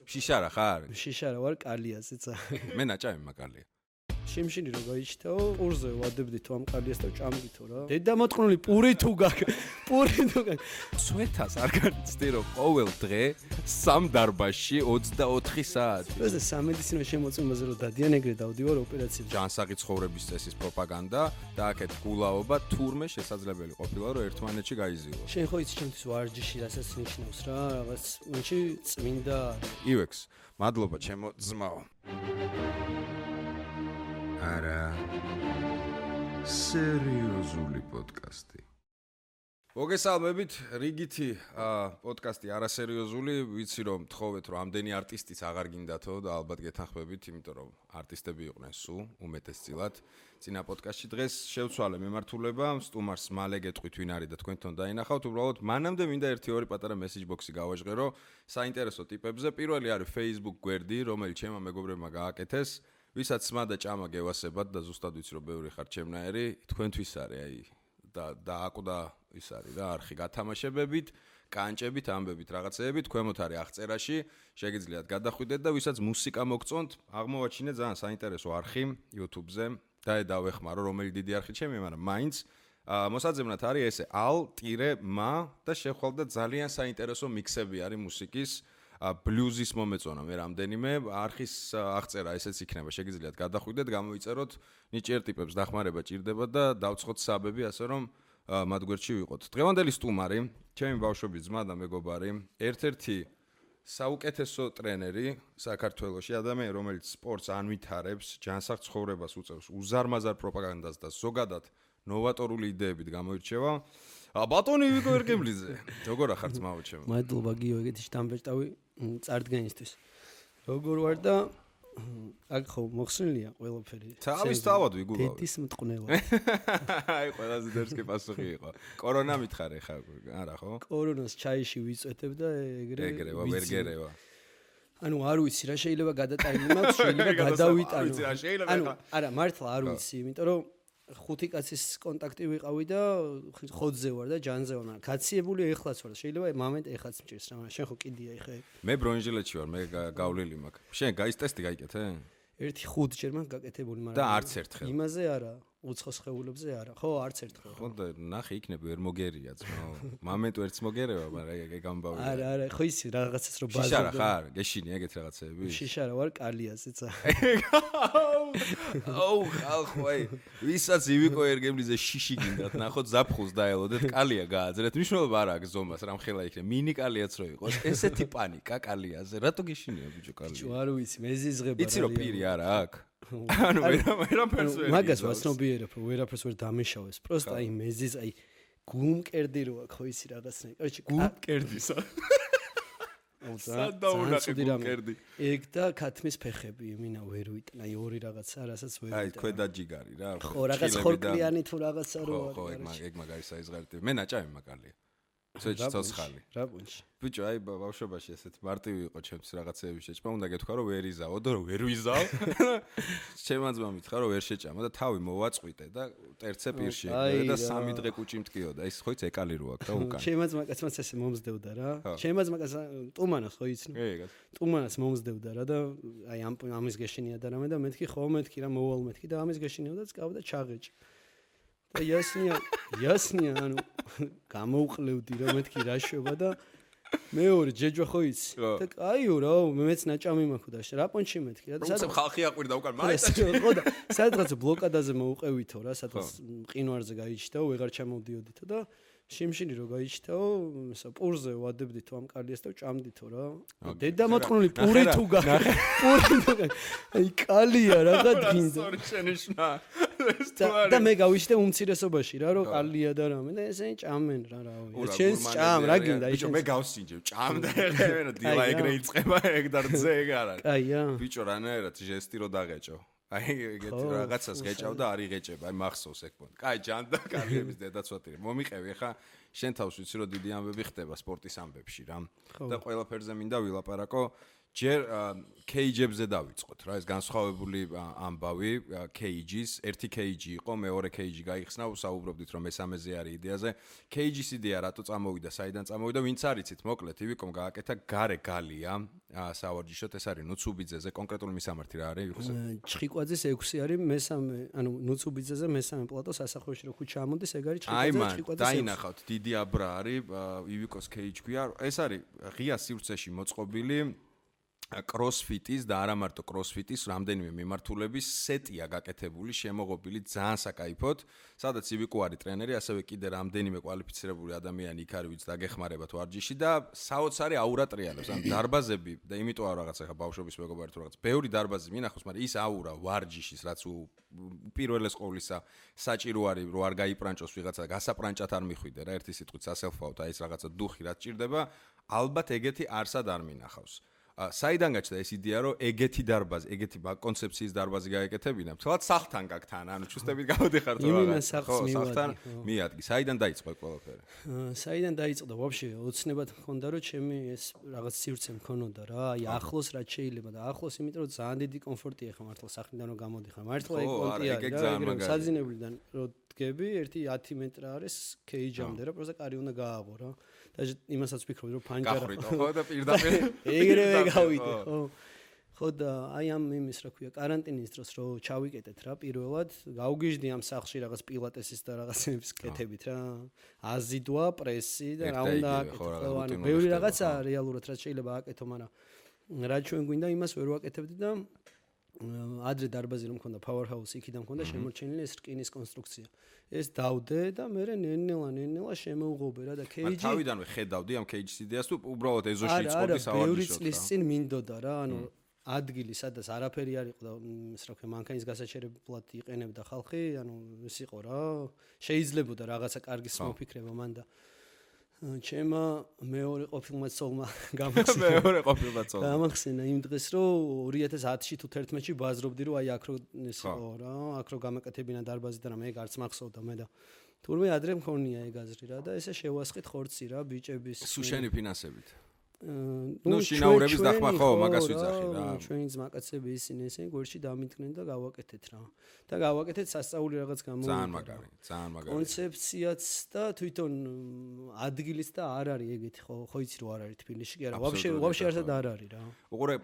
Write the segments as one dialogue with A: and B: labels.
A: შიშარა ხარ?
B: შიშარა ვარ, კალიაზეც.
A: მე ნაჭამი მაგალია.
B: შიმშინი რო გაიჩითაო, პურზე ვადებდითო ამ კალიას და ჭამდითო რა. დედამოწყნული პური თუ გაქვს.
A: სვეთას არ განიცდი რომ ყოველ დღე სამ დარბაზში 24 საათი.
B: ეს სამედიცინო შემოწმებაზე რომ დადიან ეგრე დავდივარ ოპერაციაზე.
A: ჯანსაღი ცხოვრების წესის პროპაგანდა და აქეთ გულაობა თურმე შესაძლებელი ყოფილა რომ ერთმანეთში გაიზიო.
B: შენ ხო იცი ჩემთვის ვარჯიში რასაც ნიშნავს რა, რაღაც მაშინ წმინდა.
A: ივექს, მადლობა ჩემო ძმაო. არა სერიოზული პოდკასტი. მოგესალმებით, რიგითი პოდკასტი არასერიოზული, ვიცი რომ თხოვეთ რომ ამდენი არტისტიც აღარ გინდათო და ალბათ გეთანხმებით, იმიტომ რომ არტისტები იყვნენ სულ უმეტესწილად. წინა პოდკასტში დღეს შევცვალე მემართულება, სტუმარს მალე გეტყვით ვინ არის და თქვენთან დაინახავთ, უბრალოდ მანამდე მინდა 1-2 პატარა მესეჯ ბოქსი გავაჟღერო საინტერესო ტიპებზე. პირველი არის Facebook გვერდი, რომელიც ჩემმა მეგობრებმა გააკეთეს. ვისაც სმა და ჭამა გევასებათ და ზუსტად ვიცი რომ ბევრი ხარ ჩემნაირი, თქვენთვის არის აი და აკვდა ის არის რა არხი გათამაშებებით, კანჭებით, ამბებით, რაღაცეებით, ქვემოთ არის აღწერაში, შეგიძლიათ გადახვიდეთ და ვისაც მუსიკა მოგწონთ, აღმოვაჩინე ძალიან საინტერესო არხი YouTube-ზე და დავეხმარო რომელი დიდი არხი ჩემი, მაგრამ მაინც მოსაძებნად არის ესე al-ma და შეხვალ და ძალიან საინტერესო მიქსები არის მუსიკის ბლუზის მომეწონა მე რამდენიმე არხის აღწერა ესეც იქნება შეგიძლიათ გადახვიდეთ გამოიწეროთ ნიჭიერ ტიპებს დახმარება ჭირდება და დავცხოთ საბები ასე რომ მათ გვერდში ვიყოთ დღევანდელი სტუმარი ჩემი ბავშვობის ძმა და მეგობარი ერთ-ერთი საუკეთესო ტრენერი საქართველოში ადამიანი რომელიც სპორტს ანვითარებს ჯანსაღ ცხოვრებას უწევს უზარმაზარ პროპაგანდას და ზოგადად ნოვატორული იდეებით გამოირჩევა ბატონი ვიკო ერგემლიძე როგორ ახარ ძმაო ჩემო
B: მადლობა გიო ეგეთი შტამბეჭდავი წარდგენისთვის როგორ ვარ და აქ ხო მოხსნილია ყველაფერი
A: თავის თავად ვიგულავ
B: დედის მტყნელა
A: აი ყველაზე დერსკი პასუხი იყო კორონა მითხარე ხა არა ხო
B: კორონას ჩაიში ვიწვეთებ და
A: ეგრევა ვერგერევა
B: ანუ არ ვიცი რა შეიძლება გადატაინი მაქვს შეიძლება გადავიტანო ანუ არა მართლა არ ვიცი იმიტომ რომ ხუთი კაცის კონტაქტი ვიყავი და ხოთზე ვარ და ჯანზე ვარ, მაგრამ გაციებული ეხლაც ვარ. შეიძლება მომენტ ეხლაც მჭირს რა, მაგრამ შენ ხო კიდია ეხა.
A: მე ბრონჟილეთში ვარ, მე გავლილი მაქვს. შენ გაის ტესტი გაიკეთე?
B: ერთი 5 ჯერ მაქვს გაკეთებული, მაგრამ
A: და არც ერთხელ.
B: იმაზე არა, უცხო სხეულებზე არა. ხო, არც ერთხელ.
A: ხო და ნახე იქნება ვერ მოგერია ძმაო. მომენტ ვერც მოგერევა, მაგრამ ეგ ამბავია.
B: არა, ხო ისი რაღაცას რო ბაზარზე.
A: შიშარა ხარ? გეშინი ეგეთ რაღაცეები?
B: შიშარა ვარ კალიაზეც.
A: აუ, ხალხოი. ვისაც ივიკო ერგემლიძე შიში გინდათ, ნახოთ ზაფხულს დაელოდეთ, კალია გააძრეთ. მნიშვნელობა არ აქვს ზომას, რამხელა იქნება. მინი კალიაც რო იყოს. ესეთი პანიკა კალიაზე. რატო გეშინია ბიჭო კალია?
B: ბიჭო, არ ვიცი, მეზიზღება რა.
A: იცი რო პირი არა აქვს? ანუ ვერაფერს ვერ
B: მაგას ვაცნობიერებ, რომ ვერაფერს ვერ დამეშავეს. პროსტ აი მეზიზ აი გულმკერდი რო აქვს, ხო ისი რაღაცნაირი. კაიჩი
A: გულმკერდისა. სადაუნახე გულმკერდი.
B: ეგ და ქათმის ფეხები, მინა ვერ ვიტან, აი ორი რაღაცა, რასაც ვერ ვიტან.
A: აი ქვედა ჯიგარი რა.
B: ხო, რაღაც ხორკლიანი თუ რაღაცა რო არის.
A: ხო, ეგ მაგარი საიზღარიტი. მე ნაჭამი მაგალია. ცოცხი ცოცხალი.
B: რა პუნჩი.
A: ბიჭო, აი ბავშვობაში ესეთ მარტივი იყო ჩემთვის რაღაცეები შეჭმა, უნდა გეთქვა რომ ვერ იზაო და რომ ვერ ვიზაო. ჩემმა ძმა მითხრა რომ ვერ შეჭამა და თავი მოვაწყვიტე და ტერცე პირში და 3 დღე კუჭი მткиოდა. ის ხო იცი ეკალი რო აქვს და უკან.
B: ჩემმა ძმა კაცმაც ესე მომზდევდა რა. ჩემმა ძმა კაც ტუმანას ხო იცნო?
A: ეგ.
B: ტუმანას მომზდევდა რა და აი ამის გეშინია და რამე და მეთქი ხო მეთქი რა მოვალ მეთქი და ამის გეშინიო და წკავდა ჩაღეჭი. და იასნია ანუ გამოვყლევდი რა მეთქი რა შვება და მეორე ჯეჯვა ხო იცი და კაიო რა მეც ნაჭამი მაქვს და რა პონჩი მეთქი რა და
A: სადაც ხალხი აყვირდა უკან მაინც
B: ხო და სადღაც ბლოკადაზე მოვუყევითო რა სადღაც მყინვარზე გაიჩიტაო ვეღარ ჩამოვდიოდითო და შიმშინი რო გაიჩიტაო პურზე ვადებდითო ამ კალიას და ჭამდითო რა დედამოწყნული პური თუ გაქვს აი კალია რაღაც გინდა
A: სორი შენიშნა
B: და მე გავიშტე უმცირესობაში რა რომ კალია და რამე და ესენი ჭამენ რა რავი შენს ჭამ რა გინდა
A: ბიჭო მე გავსინჯებ ჭამ და ეხება დილა ეგრე იწება ეგ დარძე ეგ არ არის
B: კაია
A: ბიჭო რანაირად ჟესტი რო დაღეჭო აი ეგეთ რაღაცას გეჭავ და არ იღეჭება აი მახსოვს ეგ პონტ კაი ჯანდა კალიების დედაცვათი მომიყევი ხა შენ თავს ვიცი რომ დიდი ამბები ხდება სპორტის ამბებში რა და ყველაფერზე მინდა ვილაპარაკო ჯერ KG-ებზე დავიწყოთ რა, ეს განსხვავებული ამბავი KG-ის, ერთი KG იყო, მეორე KG გაიხსნა, ვსაუბრობდით რომ მესამეზე არის იდეაზე. KG-ის იდეა რატო წამოვიდა, საიდან წამოვიდა, ვინც არიცით, მოკლედ, ივიკომ გააკეთა გარე გალია, სავარჯიშოდ ეს არის ნუცუბიძეზე, კონკრეტული მისამართი რა არის, ივიკოს?
B: ჩხიკვაძის 6 არის მესამე, ანუ ნუცუბიძეზე მესამე პლატო სასახლეში რო ქუჩა ამოდის, ეგ არის ჩხიკვაძის 6.
A: დაინახავთ, დიდი აბრა არის, ივიკოს KG ქვია, ეს არის ღია სივრცეში მოწყობილი CrossFit-ის და არა მარტო CrossFit-ის რამდენიმე მიმართულების სეტია გაკეთებული, შემოღობილი ძალიან საკაიფოდ, სადაც ივიკო არის ტრენერი, ასევე კიდე რამდენიმე კვალიფიცირებული ადამიანი იქ არის, ვინც დაგეხმარებათ ვარჯიში და საოცარი აურა ტრიალებს. ან დარბაზები და იმიტომ არ რაღაცა ხა ბავშვობის მეგობარი თუ რაღაც. ბევრი დარბაზი მინახავს, მაგრამ ის აურა ვარჯიშის, რაც პირველეს ყოვლისა საჭირო არის, რომ არ გაიპრანჭოს ვიღაცა, გასაპრანჭად არ მიხვიდე რა, ერთი სიტყვით სასელფაოდ, აი ეს რაღაცა დუხი რაც ჭირდება, ალბათ ეგეთი არსად არ მინახავს. საიდან გაჩნდა ეს იდეა, რომ ეგეთი დარბაზი, ეგეთი კონცეფციის დარბაზი გაეკეთებინა? თვალად სახლთან გაგთან, ანუ ჩუსტებით გავდიხარ თუ
B: რა. სახლთან
A: მიადგი. საიდან დაიწყო ყველაფერი?
B: საიდან დაიწყო და ვაფშე ოცნებად მქონდა, რომ ჩემი ეს რაღაც სივრცე მქონოდა რა, აი ახლოს რაც შეიძლება და ახლოს, იმიტომ რომ ძალიან დიდი კომფორტია ხა მართლა სახლიდან რომ გამოდიხარ. მართლა ეგ კონტია რა, საძინებლიდან რომ დგები, ერთი 10 მეტრა არის KG-მდე რა, პროსტა კარი უნდა გააღო რა. და იმასაც ვფიქრობდი რომ ფანჯარა
A: გახრიტო ხო და პირდაპირ
B: ეგრევე გავიდე ხო ხო და აი ამ იმის რა ქვია каранტინის დროს რო ჩავიკეტეთ რა პირველად გავგიჟდი ამ სახლში რაღაც პილატესის და რაღაცების კეთებით რა აზიდვა პრესი და რა უნდა აკეთო ხო ანუ ბევრი რაღაცა რეალურად რაც შეიძლება აკეთო მაგრამ რა ჩვენ გვინდა იმას ვერ ვაკეთებდი და ადრე დარბაზი რომ მქონდა powerhouse იქიდან მქონდა შემორჩენილი ეს რკინის კონსტრუქცია ეს დავდე და მე ნელა შემოუღობე რა და KG
A: თავიდანვე ხედავდი ამ KG-ის იდეას თუ უბრალოდ ეზოში იწოდი სავარჯიშოდ რა
B: ბევრი წლის წინ მინდოდა რა ანუ ადგილი სადაც არაფერი არ იყო და ეს რა ქვია მანქანის გასაჩერებლად იყენებდა ხალხი ანუ ეს იყო რა შეიძლებოდა რაღაცა კარგის მოფიქრება მან და ჩემმა მეორე ყოფილმა ცოლმა გამახსენა იმ დღეს რომ 2010-ში თუ 11-ში ბაზრობდი რომ აი აქ რო ეს იყო რა აქ რო გამაკეთებინა დარბაზი და მე გარც მახსოვდა მე და თურმე ადრე მქონია ეგ აზრი რა და ესე შევასყით ხორცი რა ბიჭების
A: სუშენი ფინანსებით ნუ შინაურების დახმა ხო მაგას ვიძახი რა
B: ჩვენი ძმაკაცები ისინი ესენი გვერდში დამიდგნენ და გავაკეთეთ რა და გავაკეთეთ სასწაული რაღაც გამოვიდა
A: ძალიან მაგარი
B: კონცეფციაც და თვითონ ადგილიც და არ არის ეგეთი ხო იცი რომ არ არის თბილისში კი არა ვაფშე არსად არ არის რა
A: უყურე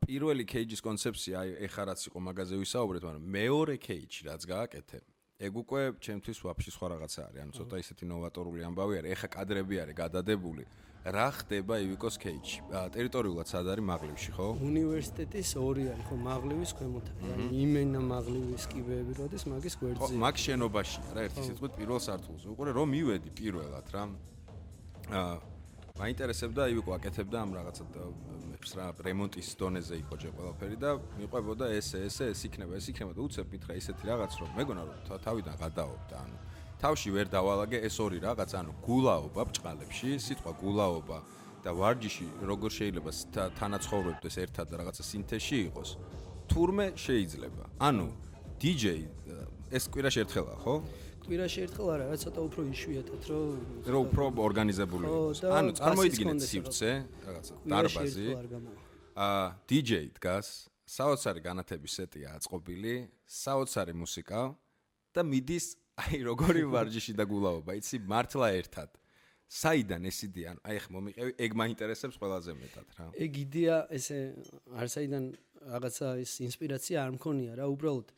A: პირველი KG-ის კონცეფცია აი ეხა რაც იყო მაგაზე ვისაუბრეთ მაგრამ მეორე KG რაც გააკეთე ეგ უკვე ჩემთვის ვაფშე სხვა რაღაცა არის ანუ ცოტა ისეთი ნოვატორული ამბავი არის ეხა კადრები არის გადადებული რა ხდება ივიკოს KG-ში? ტერიტორიულად სად არის მაღლივში, ხო?
B: უნივერსიტეტის 2 არის, ხო, მაღლივის ქვემოთ. იმენა მაღლივის კიბეები როდის მაგის გვერდზე.
A: მაგ შენობაში რა, ერთი სიტყვით პირველ სართულზე. უყურე რომ მივედი პირველად რა. მაინტერესებდა ივიკო აკეთებდა ამ რაღაცა რა რემონტის დონეზე იყო ჯერ ყველაფერი და მიყვებოდა ეს იქნება და უცებ მითხრა ისეთი რაღაც რომ მეგონა რომ თავიდან გადაობდა ანუ თავში ვერ დავალაგე ეს ორი რაღაც ანუ გულაობა ბჭყალებში სიტყვა გულაობა და ვარჯიში როგორ შეიძლება თანაცხოვრებდეს ერთად და რაღაცა სინთეზში იყოს თურმე შეიძლება ანუ DJ ეს კვირაში ერთხელა ხო
B: კვირაში ერთხელ არა რა ცოტა უფრო იშვიათად
A: რომ უფრო ორგანიზებული იყოს ანუ წარმოიდგინეთ სივრცე რაღაცა დარბაზი DJ დგას საოცარი განათების სეტია აწყობილი საოცარი მუსიკა და მიდის აი როგორი ვარჯიში და გულაობა იცი მართლა ერთად საიდან ეს იდეა ანუ აი ხ მომიყევი ეგ მაინტერესებს ყველაზე მეტად რა
B: ეგ იდეა ესე არ საიდან რაღაცა ეს ინსპირაცია არ მქონია რა უბრალოდ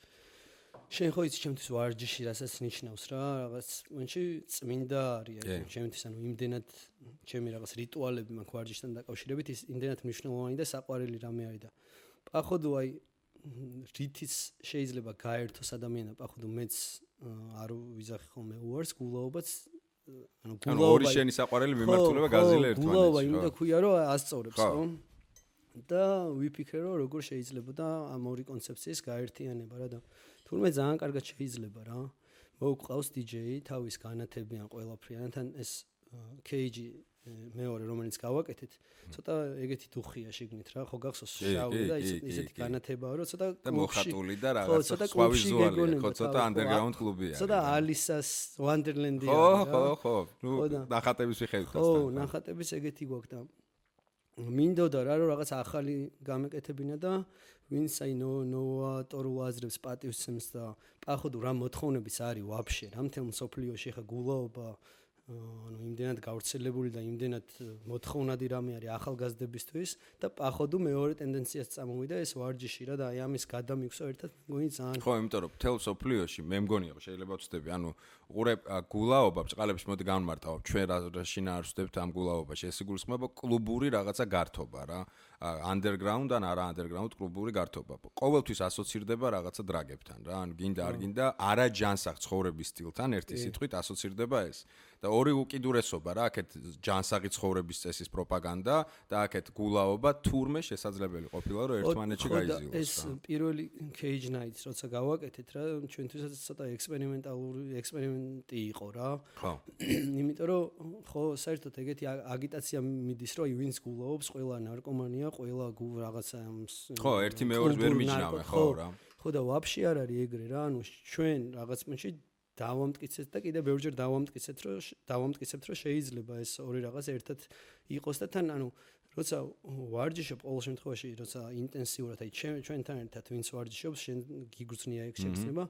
B: შენ ხო იცი ჩემთვის ვარჯიში რასაც ნიშნავს რა რაღაც მონში წმინდა არის ჩემთვის ანუ იმდენად ჩემი რაღაც რიტუალები მაქვს ვარჯიშთან დაკავშირებით ის იმდენად მნიშვნელოვანი და საყვარელი რამე არის და პაходу აი რითიც შეიძლება გაერთოს ადამიანი და პაходу მეც არ ვიზახი ხოლმე უარს გულაობაც
A: ანუ გულაობა შენი საყვარელი მიმართულება გაზილა ერთმანეთს
B: გულაობა იმდა ქვია რომ ასწორებს ხო და ვიფიქრე რომ როგორ შეიძლება და ამ ორი კონცეფციის გაერთიანება რა და თურმე ძალიან კარგად შეიძლება რა მოუყავს DJ თავის განათებიან ყველაფრიანთან ეს KG მეორე რომელიც გავაკეთეთ ცოტა ეგეთი დუხია შიგნით რა ხო გახსოვს შავი და ისეთი განათებაა რომ ცოტა
A: და მოხატული და რაღაცა სხვა ვიზუალი ხო ცოტა underground კლუბია
B: ცოტა ალისას ვანდერლენდია
A: ხო ნახატების მიხედვით
B: ხო ნახატების ეგეთი გვაქვს და მინდოდა რა რომ რაღაც ახალი გამეკეთებინა და ვინც აი ნოვატორულ აზრებს პატივსცემს და პაходу რა მოთხოვნების არის ვაფშე რა მთელ მსოფლიოში ხა გულაობა ანუ იმდენად გავრცელებული და იმდენად მოთხოვნადი რამე არის ახალგაზრდებისთვის და პაходу მეორე ტენდენციას წამოვიდა ეს ვარჯიში რა და აი ამის გადამიგვსო ერთად მგონი ძალიან
A: ხო იმიტომ რომ მთელ მსოფლიოში მე მგონია შეიძლება ვწდები ანუ უყურე გულაობა ბჭყალებს მოდი განმარტავ ჩვენ რა შინაარსვდებთ ამ გულაობაში ეს იგულისხმება კლუბური რაღაცა გართობა რა underground ან არა underground კლუბური გართობა ყოველთვის ასოცირდება რაღაცა დრაგებთან რა ანუ გინდა არ გინდა არა ჯანსაღ ცხოვრების სტილთან ერთი სიტყვით ასოცირდება ეს და ორი უკიდურესობა რა აქეთ ჯანსაღი ცხოვრების წესის პროპაგანდა და აქეთ გულაობა თურმე შესაძლებელი ყოფილა რომ ერთმანეთში გაიზიოს
B: ეს პირველი cage nights როცა გავაკეთეთ რა ჩვენთვისაც ცოტა ექსპერიმენტი იყო რა
A: ხო
B: იმიტომ რომ ხო საერთოდ ეგეთი აგიტაცია მიდის რომ ვინც გულაობს ყველა ნარკომანია ყველა რაღაცა
A: ხო ერთი მეორეს ვერ მიჯნავენ ხო რა
B: ხო და ვაფშე არ არის ეგრე რა ანუ ჩვენ რაღაც პუნქტში დავამტკიცეთ და კიდე ბევრჯერ დავამტკიცებთ რომ შეიძლება ეს ორი რაღაც ერთად იყოს და თან ანუ როცა ვარჯიშობ ყოველ შემთხვევაში როცა ინტენსიურად აი ჩვენთან ერთად ვინც ვარჯიშობს შენ გიგრძნია ეგ შეგრძნება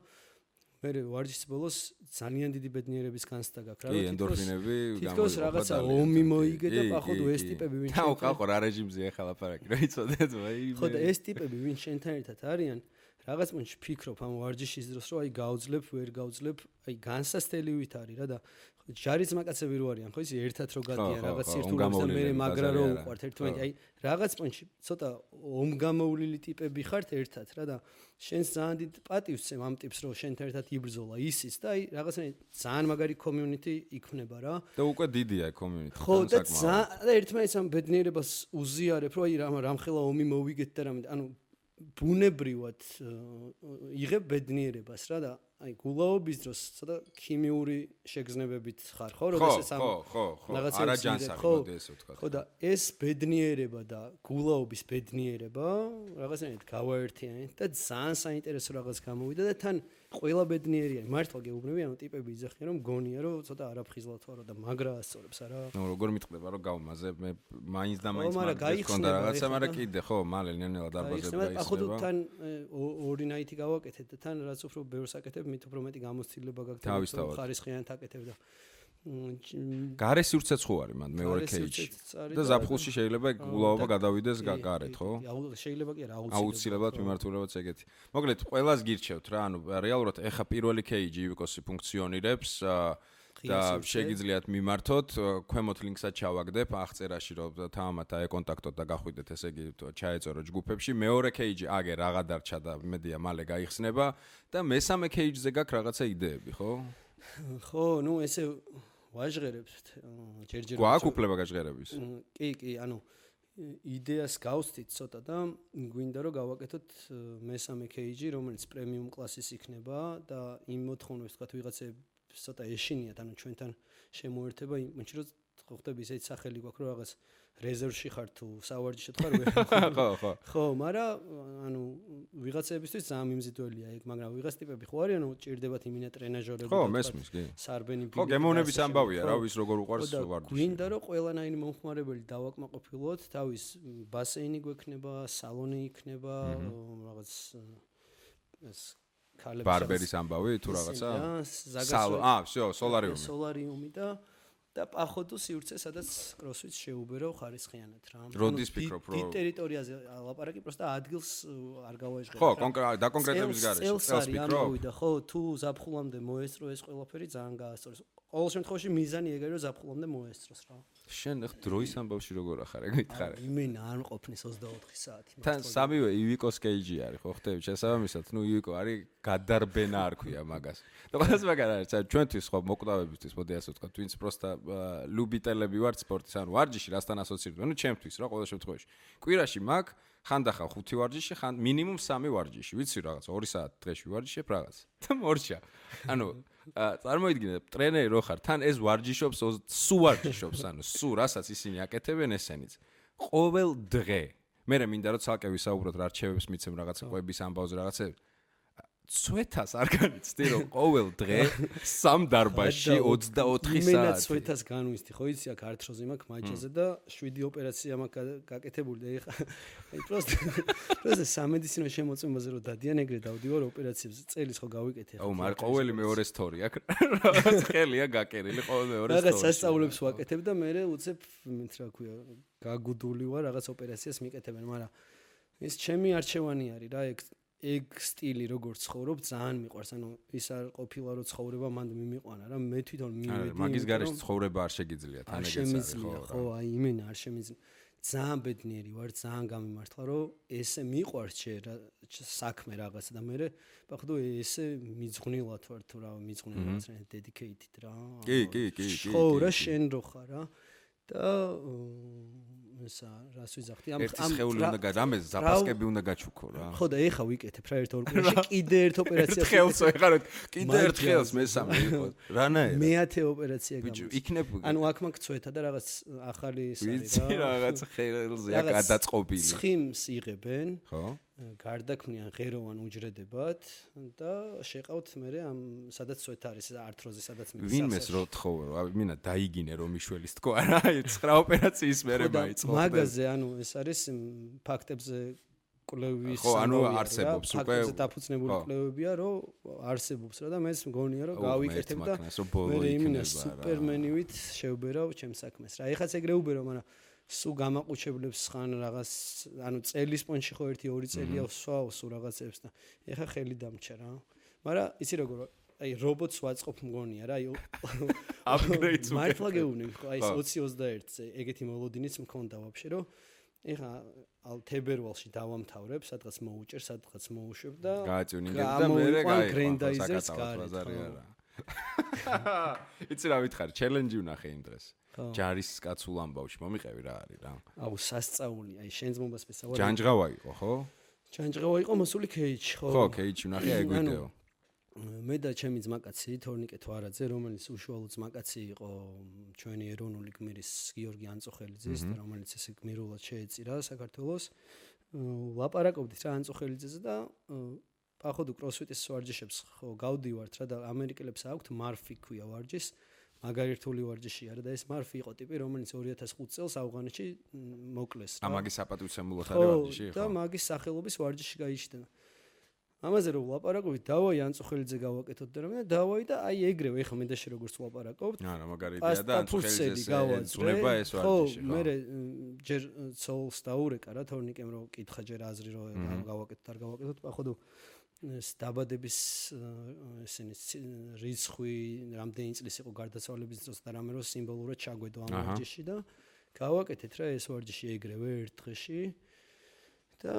B: მე ვარჯიშის ბოლოს ძალიან დიდი ბედნიერების განცდა გაქვს რა
A: ენდორფინები
B: თითქოს რაღაცა ომი მოიგე და პაходу ეს ტიპები ვინც
A: თავყავ რა რეჟიმზე ახლა ლაპარაკი რა იცოდეთ ვაი
B: ხო და ეს ტიპები ვინც შენთან ერთად არიან რაღაც მომენტში ფიქრობ ამ ვარჯიშის დროს რომ აი გავძლებ ვერ გავძლებ აი განსასწრებით არის რა და ჯარის მაკაცები რო არიან ხო ისი ერთად რო გადიან რაღაც ერთურს და მე მაგრა რო უყვართ ერთმანეთი აი რაღაც მომენტში ცოტა ომგამოვლილი ტიპები ხართ ერთად რა და შენს ძალიან დიდ პატივს წემ ამ ტიპს რომ შენთან ერთად იბრძოლა ისიც და აი რაღაცნაირად ძალიან მაგარი community იქნება რა
A: და უკვე დიდია community
B: ხო და ერთმანეთს ამ ბედნიერებას უზიარებ რომ აი რამხელა ომი მოვიგეთ და რამე ანუ ბუნებრივად იღებ ბედნიერებას რა და აი გულაობის დროს ცოტა ქიმიური შეგრძნებებით ხარ ხო როდესაც ამ
A: ხო არა ჯანსაღი მოდი ესე ვთქვა
B: ხო და ეს ბედნიერება და გულაობის ბედნიერება რაღაცნაირად გავაერთიანეთ და ძალიან საინტერესო რაღაც გამოვიდა და თან ყველა ბედნიერია მართლა გეუბნები ანუ ტიპები იძახიან რომ გონია რომ ცოტა არაფხიზლად ვარო და მაგრა ასწორებს არა
A: ნუ როგორ მიტყდება რომ გავმაზე მე მაინც და მაინც მქონდა რაღაცა მაგრამ კიდე ხო მალე ნელ-ნელა დარბაზები გაიხსნება
B: ახლა თან ორი ნაითი გავაკეთეთ და თან რაც უფრო ბევრს აკეთებ მით უფრო მეტი გამოცდილება გაქვს ხარისხიანად აკეთებ და
A: გარე სივრცეც ხო არის მანდ მეორე кейჯი და ზაფხულში შეიძლება გულაობა გადავიდეს გარეთ ხო
B: შეიძლება კი არა
A: აუცილებლად მიმართულებაც ეგეთი მოკლედ ყველას გირჩევთ რა ანუ რეალურად ეხა პირველი кейჯი ივიკოსი ფუნქციონირებს და შეგიძლიათ მიმართოთ ქვემოთ ლინკსაც ჩავაგდებ აღწერაში რომ თამამად აეკონტაქტოთ და გახვიდეთ ესე იგი ჩაეწერო ჯგუფებში მეორე кейჯი აგე რაღა დარჩა და მედია მალე გაიხსნება და მესამე кейჯზე გაქვს რაღაცა იდეები ხო
B: ხო ნუ ესე ვაჟღერებთ ჯერჯერობით
A: გვაქვს უფლება გაჟღერების
B: კი ანუ იდეას გავსდით ცოტა და გვინდა რომ გავაკეთოთ მესამე кейჯი რომელიც პრემიუმ კლასის იქნება და იმ მოთხოვნებს თქვა ვიღაცებს ცოტა ეშინიათ ანუ ჩვენთან შემოერთება იმ მომენტში რომ ხვდები ისეთი სახელი გვაქვს რომ რაღაც რეზერვში ხარ თუ სავარჯიშოდ ხარ ხო მაგრამ ანუ ვიღაცებისთვის ძალიან მიმზიდველია ეგ მაგრამ ვიღაც ტიპები ხო არიან ჭირდებათ იმინა ტრენაჟორები
A: ხო მესმის კი
B: სარბენი
A: ხო გემოვნების ამბავია რა ვის როგორ უყარს ვარჯიში
B: გვინდა რომ ყველანაირი მომხმარებელი დავაკმაყოფილოთ თავის ბასეინი გვექნება სალონი იქნება რაღაც ეს
A: ბარბერის ამბავი თუ რაღაცა всё
B: სოლარიუმი და პაходу სივრცე სადაც კროსფიტს შეუბერო ხარისხიანად რა.
A: როდის ფიქრობ რომ
B: დიდ ტერიტორიაზე ლაპარაკი პროსტა ადგილს არ გავაეჟღერებ.
A: ხო, დაკონკრეტების გარეშე.
B: წელს ფიქრობ. ხო, თუ ზაფხულამდე მოესწრო ეს ყველაფერი ძალიან გაასწორეს. ყოველ შემთხვევაში მიზანი ეგაა რომ ზაფხულამდე მოესწროს რა.
A: შენ დროის ამბავში როგორ ახარ ეგ მითხარე?
B: იმენა არ მყოფნის 24 საათი.
A: თან სამივე ივიკოს кейჯი არის ხო ხტები შესაბამისად ნუ ივიკო არის გადარბენა არ ქვია მაგას. და ყველას მაგარ არის ჩვენთვის ხო მოკვდავებისთვის მოდი ასე ვთქვა twins პროსტა ლუბიტელები ვართ სპორტის ანუ ვარჯიში რასთან ასოცირდება ნუ ჩემთვის რა ყოველ შემთხვევაში კვირაში მაგ ხანდახან 5 ვარჯიში ხან მინიმუმ 3 ვარჯიში ვიცი რაღაც 2 საათი დღეში ვარჯიშებ რაღაც და მორჩა ანუ წარმოიდგინე ტრენერი რო ხარ თან ეს ვარჯიშობს სუ ვარჯიშობს ანუ სუ რასაც ისინი აკეთებენ ესენიც ყოველ დღე მე მინდა რომ ცალკე ვისაუბროთ რა რჩევებს მიცემ რაღაცა ყვების ამბავზე რაღაცა ცვეთას არ განიცდი რომ ყოველ დღე სამ დარბაზში 24 საათი.
B: იმენა ცვეთას განვისდი, ხო იცი, აქ ართროზი მაქვს მაჯაზე და 7 ოპერაცია მაქვს გაკეთებული და ეხა აი პროსტა სამედიცინო შემოწმებაზე რომ დადიან ეგრე დავდივარ ოპერაციებს წელის ხო გავიკეთე.
A: აუ, მაგრამ ყოველი მეორე სტორი აქ რაღაც ხელია გაკერილი ყოველ მეორე სტორი.
B: რაღაც სასწაულებს ვაკეთებ და მე უცებ მით რა ქვია, გაგუდული ვარ რაღაც ოპერაციას მიკეთებენ, მაგრამ ეს ჩემი არჩევანი არის რა, ეგ სტილი როგორ ცხოვრობ ძალიან მიყვარს, ანუ ის არ ყოფილა რომ ცხოვრება მანდ მიმიყვანა რა, მე თვითონ მივედი.
A: მაგის გარეშე ცხოვრება არ შეგიძლია, თან ეგეც არის
B: ხო, აი იმენა არ შემიძლია. ძალიან ბედნიერი ვარ, ძალიან გამიმართლა რომ ესე მიყვარს საქმე რაღაცა და მე ბახდო ესე მიძღვნილად ვარ თუ რა, მიძღვნილად რა, dedicated რა.
A: კი.
B: ხო, რა შენ რო ხარ რა. და ესა რას ვიზახდი ამ
A: სხეული უნდა რამე ზაპასკები უნდა გაჩუქო რა.
B: ხო და ეხა ვიკეთებ რა ერთ ოპერაციას კიდე ერთ ოპერაციას
A: ხელს ეხარ კიდე ერთ ხელს მესამე იყო რანაირად
B: მეათე ოპერაცია
A: ბიჭო იქნებ
B: ანუ აქ მაქვს ცვეთა და რაღაც ახალი ის არის
A: რა რაღაც ხელზე აქ გადაწყობილი
B: ცხიმს იღებენ
A: ხო
B: გარდაქმნიან ღეროვან უჯრედებად და შეყავთ მე ამ სადაც ცვეთა არის ართროზი სადაც მე
A: ვინმეს რო თხოვე რა მინა დაიგინე რომ მიშველის თქო რა 9 ოპერაციის მერე მაიწყო
B: მაგაზე ანუ ეს არის ფაქტებზე კვლევის
A: ხო ანუ არსებობს უკვე
B: ფაქტებზე დაფუძნებული კვლევებია რომ არსებობს რა და მე მგონია რომ გავიკეთებ და მე იმინა სუპერმენივით შევბერავ ჩემს საქმეს რა ეხაც ეგრე უბერო მაგრამ სულ გამაყუჩებლებს ხან რაღაც ანუ წელის პონჩი ხო 1-2 წელია ვსვავ სულ რაღაცებს და ეხა ხელი დამჭა რა მაგრამ იცი როგორ აი რობოტს ვაწყობ მგონია რა აი
A: აპგრეიდს უკვე
B: მართლა გეუბნები ხო აი 20-21-ზე ეგეთი მოლოდინიც მქონდა ვაფშე რომ ეხა ალ თებერვალში დავამთავრებ სადღაც მოუჭერ სადღაც მოუშვებ და
A: გააწუნინებ და მე
B: გრენდაიზერს გარი
A: იცი რა ვითხარ ჩელენჯი ვნახე იმ დღეს ჯარის კაცულ ამბავში მომიყევი რა არის რა
B: აუ სასწაული აი შენს მომბას მესაუბრე
A: ჯანჯღავა იყო ხო
B: ჯანჯღავა იყო მოსული ქეიჩ
A: ხო ქეიჩი ვნახე აი ვიდეო
B: მე და ჩემი ძმაკაცი თორნიკე თვარაძე რომელიც უშუალო ძმაკაცი იყო ჩვენი ეროვნული გმირის გიორგი ანწუხელიძის და რომელიც ესე გმირულად შეეწირა საქართველოს ლაპარაკობდით რა ანწუხელიძეზე და ახოდუ კროსფიტის ვარჯიშებს ხო გავდივართ რა და ამერიკელებს აქვთ მარფი ქვია ვარჯიშს მაგარი რთული ვარჯიშია რა და ეს მარფი იყო ტიპი რომელიც 2005 წელს ავღანეთში მოკლეს რა
A: მაგის საპატივცემულოდ არის ვარჯიში
B: ხო და მაგის სახელობის ვარჯიში გაიჩნდა ამაზე რომ ვლაპარაკობთ დავაი ანწუხელიძე გავაკეთოთ და რა დავაი და აი ეგრევე ეხა მე და შე როგორც ვლაპარაკობთ
A: არა მაგარი იდეა და ანწუხელიძეს ეძუნება ეს ვარჯიში
B: ხო მე ჯერ ცოლს დაურეკა რა თორნიკემ რომ კითხა ჯერ აზრი რომ გავაკეთოთ არ გავაკეთოთ ახოდუ ეს დაბადების ესენი რიცხვი რამდენი წლის იყო გარდაცვალების დროს და რამე რო სიმბოლურად ჩაგვედო ამ ვარჯიში და გავაკეთეთ რა ეს ვარჯიში ეგრევე ერთ დღეში და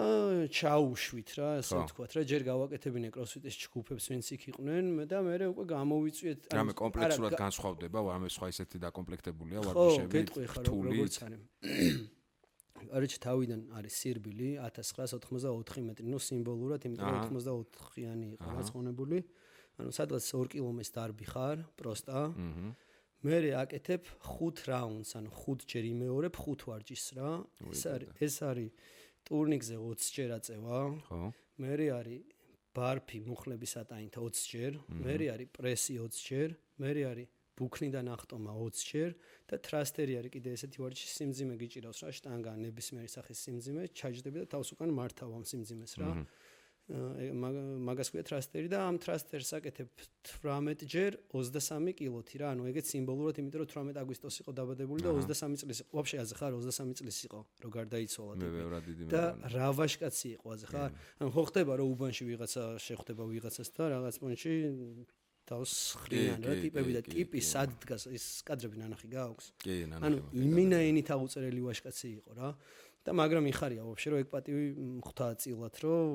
B: ჩაუშვით რა ასე ვთქვათ რა ჯერ გავაკეთებინე კროსფიტის ჯგუფებს ვინც იქ იყვნენ და მე უკვე გამოვიწვიეთ
A: რამე კომპლექსურად განსხვავდება რამე სხვა ისეთი დაკომპლექტებულია ვარჯიშები
B: რთული არჩ თავიდან არის სირბილი 1984 მეტრი ნუ სიმბოლურად იმიტომ რომ 84-იანი იყო გაცხონებული ანუ სადღაც 2 კილომეტრს დარბი ხარ პროსტა მე აკეთებ 5 რაუნდს ანუ 5 ჯერ იმეორებ 5 ვარჯიშს რა ეს არის ტურნიკზე 20 ჯერ აწევა ხო მე არის ბარფი მუხლების ატაინთა 20 ჯერ მე არის პრესი 20 ჯერ მე არის ბუქნიდან ახტომა 20 ჯერ და ტრასტერი არის კიდე ესეთი ვარჯიში სიმძიმე გიჭირავს რა შტანგა ნებისმიერი სახის სიმძიმე ჩაჯდები და თავს უკან მართავ ამ სიმძიმეს რა მაგას ქვია ტრასტერი და ამ ტრასტერს აკეთებ 18 ჯერ 23 კილოთი რა ანუ ეგეც სიმბოლურად იმიტომ რომ 18 აგვისტოს იყო დაბადებული და 23 წლის იყო ვაფშე აზე ხარ 23 წლის იყო რო გარდაიცვალა და რა ვაშკაცი იყო აზე ხარ ანუ ხო ხდება რომ უბანში ვიღაცა შეხვდება ვიღაცას და რაღაც პონჩი თავს ხრიან რა ტიპები და ტიპი სად დგას ეს კადრები ნანახი გააქვს
A: კი ნანახი
B: ანუ იმინაენით აუწერელი ვაშკაცი იყო რა და მაგრამ იხარია ვაფშე რომ ეგ პატივი ხვდა წილად რომ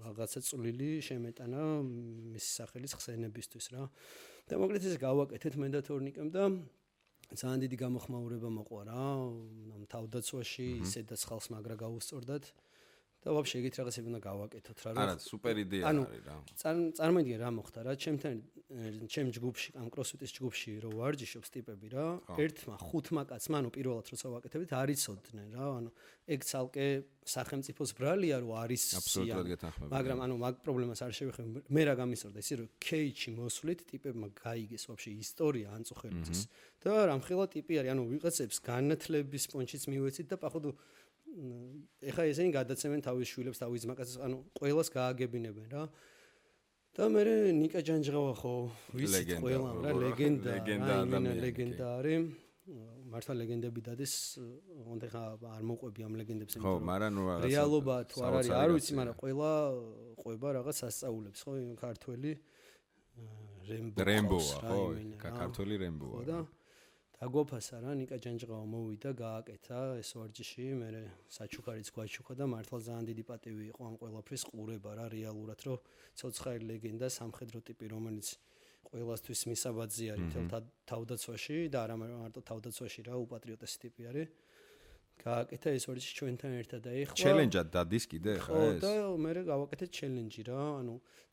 B: რაღაცა წვლილი შემეტანა მის სახელის ხსენებისთვის რა და მოკლედ ეს გავაკეთეთ მე და თორნიკემ და ძალიან დიდი გამოხმაურება მოყვა რა ამ თავდაცვაში ისედაც ხალხს მაგრა გაუსწორდათ და ვაფშე ეგეთ რაღაცები უნდა გავაკეთოთ რა.
A: არა, სუპერ იდეა არის რა.
B: წარმოიდგინე რა მოხდა რა, ჩემ ჯგუფში, ამ CrossFit-ის ჯგუფში რო ვარჯიშობს ტიპები რა, ერთმა ხუთმა კაცმა, პირველად როცა ვაკეთებით, არიცოდნენ რა, ეგ ცალკე სახელმწიფოს ბრალია რო არის
A: აბსოლუტურად გეთანხმები.
B: მაგრამ მაგ პრობლემას არ შევეხებ. მე რა გამისორდა ისე რომ кейჩი მოსვლით ტიპებმა გაიგეს ვაფშე ისტორია ანწუხებლის და რამხელა ტიპი არის, ვიღაცებს განათლების პონჩიც მივეცით და პახვდ ეხა ესენი გადაცემენ თავის შვილებს, თავის ძმაკაცებს, ყველას გააგებინებენ რა. და მე ნიკა ჯანჯღავა ხო ვიცით ყველა რა, ლეგენდა არის. მართლა ლეგენდები დადეს, ოღონდ ხა არ მოყვები ამ ლეგენდებს,
A: ხო, მაგრამ ნუ რაღაცა
B: რეალობა თუ არ არის, არ ვიცი, მაგრამ ყველა ყვება რაღაც სასწაულებს, ხო, ქართველი რემბოა, ხო,
A: ქართველი რემბოა.
B: და დაგოფასა რა, ნიკა ჯანჯღავა მოვიდა, გააკეთა ეს ვარჯიში, მე საჩუქარიც გვაჩუქა და მართლა ძალიან დიდი პატივი იყო ამ ყველაფრის ყურება რა, რეალურად, რომ ცოცხალი ლეგენდა, სამხედრო ტიპი, რომელიც ყველასთვის მისაბაძი არის თავდაცვაში და არა მარტო თავდაცვაში რა, უპატრიოტესი ტიპი არის. გააკეთა ეს ვარჯიში ჩვენთან ერთად და ეხლა
A: ჩელენჯად დადის კიდე ხა ეს?
B: და მე გავაკეთეთ ჩელენჯი რა,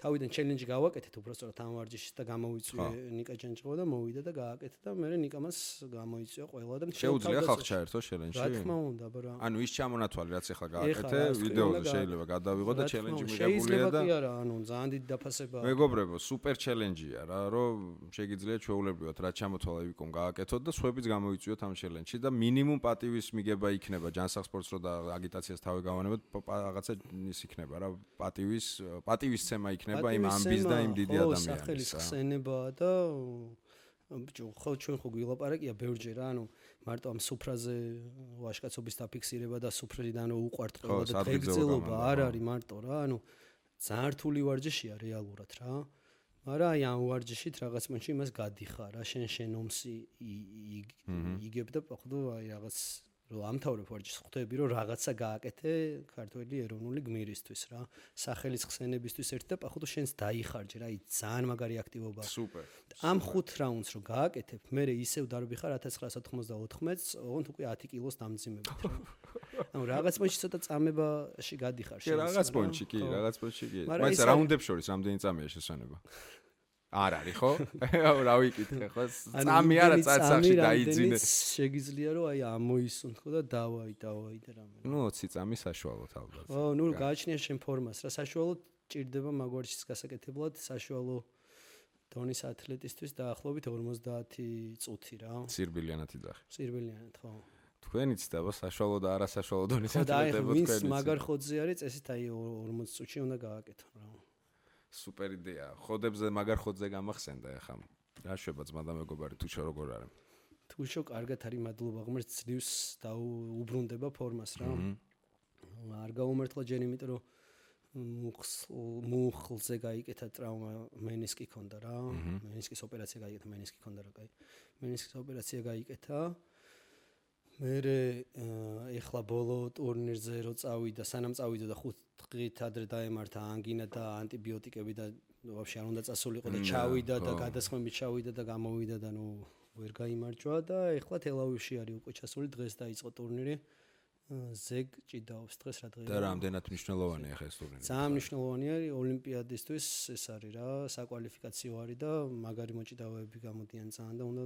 B: თავიდან ჩელენჯი გავაკეთეთ უბრალოდ ამ ვარჯიშის და გამოვიწვიე ნიკა ჯანჯღავა და მოვიდა და გააკეთა და მე ნიკამას გამოიწვია ყველა და
A: შეუძლია ხალხ ჩაერთო ჩელენჯში?
B: რა თქმა უნდა, ბრა.
A: ის ჩამონათვალი რაც ახლა გააკეთე, ვიდეოზე შეიძლება გადავიღო და ჩელენჯი მიღებულია და
B: შეიძლება კი არა, ძალიან დიდი დაფასებაა.
A: მეგობრებო, სუპერ ჩელენჯია რა, რომ შეგიძლიათ ჩვეულებრივად რაც ჩამოთვალა ვიკომ გააკეთოთ და სხვაებიც გამოიწვიოთ ამ ჩელენჯში და მინიმუმ პატივის მიგება იქნება ჯანსაღ სპორტს რო და აგიტაციას თავი გავანებოთ, რაღაცა ის იქნება რა, პატივისცემა იქნება იმ ამბის და იმ დიდი ადამიანის.
B: სახელის ხსენებაა და ხო ჩვენ ხო გვილაპარაკია ბევრჯერ რა, მარტო ამ სუფრაზე ვაჟკაცობის დაფიქსირება და სუფრიდან უყვართ ყველა და დღეგრძელობა არ არის მარტო რა, ძალიან რთული ვარჯიშია რეალურად რა. მაგრამ აი ამ ვარჯიშით რაღაც მომენტში იმას გადიხარ რა, შენ ომსი იგებ და პახვდო აი რაღაც რომ ამთავრებ ვარჯიშს, ხვდები რომ რაღაცა გააკეთე ქართველი ეროვნული გმირისთვის რა, სახელის ხსენებისთვის ერთ და პახვდო შენს დაიხარჯე რა, აი ძალიან მაგარი აქტივობაა.
A: სუპერ.
B: ამ 5 რაუნდს რო გააკეთებ, მე ისევ დარბიხარ 1994-ს, ოღონდ უკვე 10 კილოს დამძიმებით რა. რაღაც პონჩი ცოტა წამებაში გადიხარ
A: შენ. რაღაც პონჩი კი, რაღაც პონჩი კი. მაგრამ რაუნდებს შორის რამდენი წამია შესანება? არ არის ხო? რა ვიკითხე ხო? წამი არა წაცახში დაიძინე.
B: შეგიძლია რომ აი ამოისუნთქო და დავაი და რამე.
A: 20 წამი საშუალოდ ალბათ.
B: ო, გააჩნია შენ ფორმას რა, საშუალოდ ჭირდება მაგვარჩის გასაკეთებლად, საშუალო დონის ათლეტისთვის დაახლოებით 50 წუთი რა.
A: სირბილიანათი ძახი.
B: სირბილიანად ხო.
A: თქვენი ცდება საშუალო და არასაშუალო დონის ათლეტებო თქვენი.
B: ვინც მაგარ ხოძზე არის, წესით აი 40 წუთში უნდა გააკეთო რა.
A: სუპერ იდეა. ხოდებზე მაგარ ხოძზე გამახსენდა ახლა. რა შვება ძმა და მეგობარი თუშო როგორ არის?
B: თუშო კარგად არის, მადლობა, ღმერთს ძლივს და უბრუნდება ფორმას რა. არ გაუმართლა ჯერ იმიტომ რომ მუხლზე გაიკეთა ტრავმა, მენისკი ქონდა რა. მენისკის ოპერაცია გაიკეთა, მენისკი ქონდა რა, კაი. მენისკის ოპერაცია გაიკეთა. მე ეხლა ბოლო ტურნირზე რო წავიდა, სანამ წავიდა და 5 დღით ადრე დაემართა ანგინა და ანტიბიოტიკები და ვაფშე არ უნდა წასულიყო და ჩავიდა და გადასხმებით ჩავიდა და გამოვიდა და ვერ გაიმარჯვა და ეხლა თელავივში არის უკვე ჩასული, დღეს დაიწყო ტურნირი. ზეგ ჭიდაობს დღეს რა დღეა.
A: და რამდენად მნიშვნელოვანია ახლა ეს ტურნირი?
B: ძალიან მნიშვნელოვანია ოლიმპიადისთვის, ეს არის რა, საკვალიფიკაციო არის და მაგარი მოჭიდავეები გამოდიან ძალიან და უნდა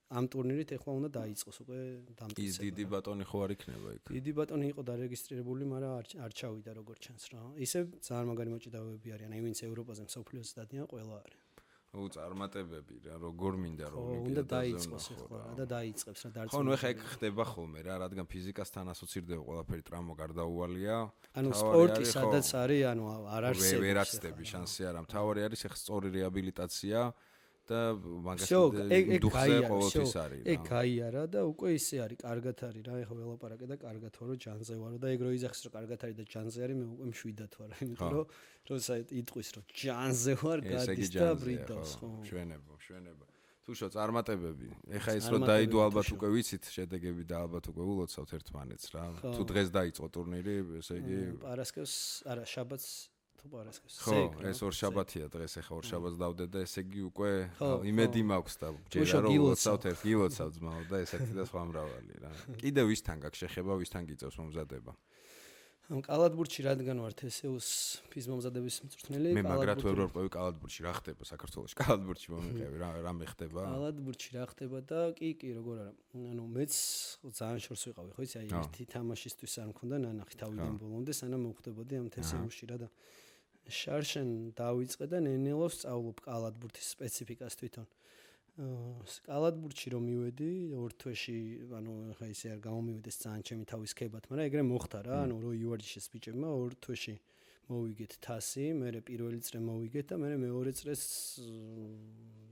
B: ამ ტურნირით ეხლა უნდა დაიწყოს უკვე დამტკიცება.
A: ის დიდი ბატონი ხო არ იქნება იქ?
B: დიდი ბატონი იყო დარეგისტრირებული, მაგრამ არ ჩავიდა როგორც ჩანს რა. ისე ძალიან მაგარი მოჭიდავეები არიან, აი ვინც ევროპაზე მსოფლიოს დადიან, ყველა არის.
A: წარმატებები რა, როგორ მინდა რომ
B: უნდა დაიწყოს ეხლა და დაიწყებს რა დარწმუნებული.
A: ხო, ეხლა ეგ ხდება ხოლმე რა, რადგან ფიზიკასთან ასოცირდება ყველაფერი, ტრავმა გარდაუვალია.
B: სპორტი სადაც არის, არ არსებობს.
A: ვერ აცდები შანსი არა. მთავარი არის ეხლა სწორი რეაბილიტაცია და მაგას დუხზე ყოველთვის არის რა.
B: ეგ გაიარა და უკვე ისე არის, კარგად არის რა, ეხლა ველაპარაკე და კარგად ვარო, ჯანზე ვარო და ეგ რო იძახის რომ კარგად არის და ჯანზე არის, მე უკვე მშვიდად ვარ, იმიტომ რომ როცა იტყვის რომ ჯანზე ვარ, გადის და ბრიდავს, ხო.
A: მშვენებო. თუშო წარმატებები. ეხლა ეს რომ დაიდო ალბათ უკვე ვიცით შედეგები და ალბათ უკვე ულოცავთ ერთმანეთს რა. თუ დღეს დაიწყო ტურნირი, ესე იგი
B: პარასკევს, არა, შაბათს თუ პარასკევს.
A: ხო, ეს ორშაბათია დღეს, ეხლა ორშაბათს დავდე და ესე იგი უკვე იმედი მაქვს და ჯერა რომ ულოცავთ ერთ გილოცავ ძმაო და ესეთი და სხვა მრავალი რა. კიდე ვისთან გაქვს შეხება, ვისთან გიწევს მომზადება?
B: კალათბურთში რადგან ვარ TSU-ს ფიზმომზადების მწვრთნელი,
A: მე მაგრად ვერ ვარყვევი კალათბურთში, რა ხდება საქართველოში? კალათბურთში მომიყევი, რა მეხდება?
B: კალათბურთში რა ხდება და კი, როგორ არა. მეც ძალიან შორს ვიყავი, ხო იცი, აი ერთი თამაშისთვის არ მქონდა ნანახი თავიდან ბოლომდე, სანამ მოვხდებოდი ამ TSU-ში რა და შარშენ დავიწყე და ნენელოს სწავლობ კალათბურთის სპეციფიკას თვითონ. კალათბურთში რომ მივედი, ორ თვეში, ხა ისე არ გამომივიდეს ძალიან ჩემი თავის ქებათ, მაგრამ ეგრე მოხდა რა, რო იუარჯიშეს ბიჭებმა ორ თვეში მოვიგეთ თასი, მე პირველი წრე მოვიგეთ და მე მეორე წრეს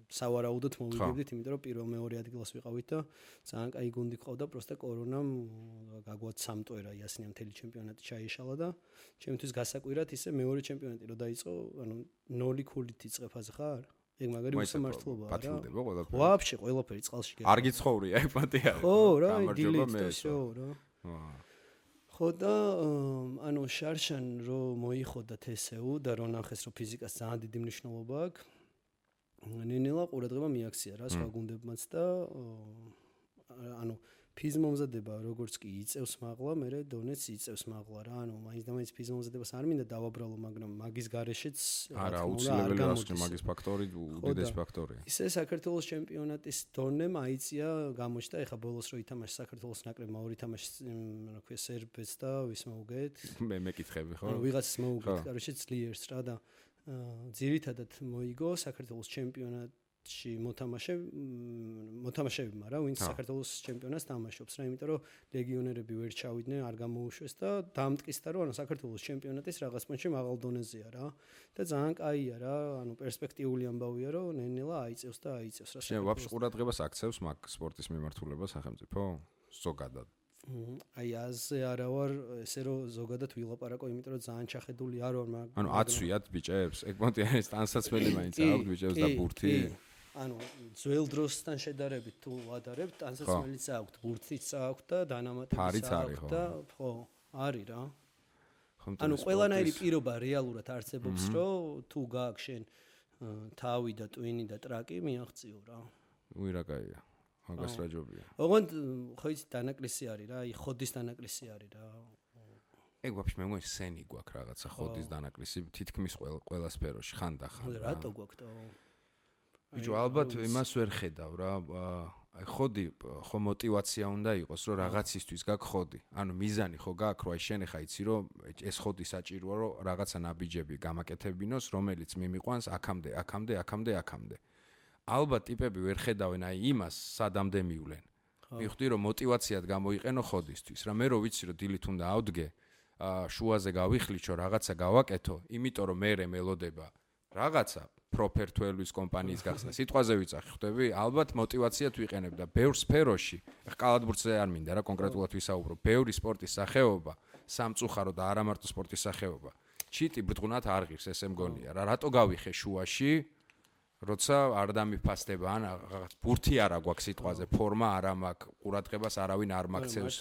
B: სავარაუდოდ მოვიგებდით, იმიტომ რომ პირველ-მეორე ადგილას ვიყავით და ძალიან კაი გუნდი ყავდა, პროსტა კორონამ გაგვაცამტვერა იასნია მთელი ჩემპიონატი ჩაიშალა და ჩემთვის გასაკვირად ისე მეორე ჩემპიონატი რო დაიწყო, 0 ქულით იწყებ აზე ხარ? ეგ მაგარი უსამართლობაა რა.
A: პატიმდება ყველაფერი.
B: ვაფშე ყველაფერი წყალში გეყო.
A: არ გიცხოვრია ეგ პატია.
B: ხო რა, დილით და შო რა. ხო და შარშან რო მოიხოდა TSU და რო ნახეს რომ ფიზიკას ძალიან დიდი მნიშვნელობა აქვს. ნენელა ყურადღება მიაქცია რა სხვა გუნდებმაც და ფიზმომზადება როგორც კი იწევს მაღლა, მე დონეც იწევს მაღლა რა. მაინც და მაინც ფიზმომზადებას არ მინდა დავაბრალო, მაგრამ მაგის გარეშეც
A: არა აუცილებელი რასკი მაგის ფაქტორი უდიდეს ფაქტორია.
B: ისე საქართველოს ჩემპიონატის დონე მაიწია გამოჩნდა, ეხა ბოლოს რო ითამაშა საქართველოს ნაკრებმა ორი თამაში, რა ქვია, სერბეთს და ვის მოუგეთ?
A: მე მეკითხები ხო?
B: ვიღაცას მოუგეთ, კაროჩე ძლიერს რა და ძირითადად მოიგო საქართველოს ჩემპიონატში მოთამაშეებმა რა, ვინც საქართველოს ჩემპიონატს თამაშობს რა, იმიტომ რომ ლეგიონერები ვერ ჩავიდნენ, არ გამოუშვეს და დამტკიცდა რომ საქართველოს ჩემპიონატის რაღაც პონჩი მაღალ დონეზეა რა და ძალიან კაია რა, პერსპექტიული ამბავია რომ ნენელა აიწევს და აიწევს რა.
A: შენ ვაფშე ყურადღებას აქცევს მაგ სპორტის მიმართულებას სახელმწიფო ზოგადად?
B: აი აზე არა ვარ, ესე რომ ზოგადად ვილაპარაკო, იმიტომ რომ ძალიან ჩახედული არ ვარ მაგ.
A: აცვიათ ბიჭებს? ეგ პონტი არის ტანსაცმელი მაინც აქვს ბიჭებს და ბურთი?
B: ძველ დროსთან შედარებით თუ ვადარებთ, ტანსაცმელიც აქვს, ბურთიც აქვს და დანამატებიც აქვს და ხო, არის რა. ყველანაირი პირობა რეალურად არსებობს, რომ თუ გააქვს შენ თავი და ტვინი და ტრაკი, მიაღწიო რა.
A: უი რა კაია. მაგას რა ჯობია.
B: ოღონდ ხო იცი დანაკლისი არის რა, ხოდის დანაკლისი არის რა.
A: ეგ ვაფშე მე მგონი სენი გვაქვს რაღაცა ხოდის დანაკლისი თითქმის ყველა სფეროში ხანდახან.
B: რატო გვაქვს და
A: ბიჭო ალბათ იმას ვერ ხედავ რა, აი ხოდი ხო мотиваცია უნდა იყოს რომ რაღაცისთვის გაქვს ხოდი. მიზანი ხო გაქვს რომ აი შენ ხა იცი რომ ეს ხოდი საჭიროა რომ რაღაცა ნაბიჯები გამაკეთებინოს, რომელიც მიმიყვანს აქამდე. ალბათ ტიპები ვერ ხედავენ აი იმას სადამდე მივლენ. მივხვდი რომ мотиваციად გამოიყენო ხოდისთვის. რა მე რო ვიცი რომ დილით უნდა ავდგე, შუაზე გავიხლიჩო, რაღაცა გავაკეთო, იმიტომ რომ მე მელოდება რაღაცა პროფერთველის კომპანიის გახსნა. სიტყვაზე ვიწახი, ხვდები? ალბათ мотиваციად ვიყენებ და ბევრ სფეროში, ხა კალათბურთზე არ მინდა რა კონკრეტულად ვისაუბრო, ბევრი სპორტის სახეობა, სამწუხარო და არა მარტო სპორტის სახეობა. ჩიტი ბრწყუნად არ ღირს, ესე მგონია რა. რატო გავიხე შუაში? როცა არ დამიფასდება ან რაღაც ბურთი არა გვაქვს სიტყვაზე, ფორმა არა მაქვს, ყურადღებას არავინ არ მაქცევს.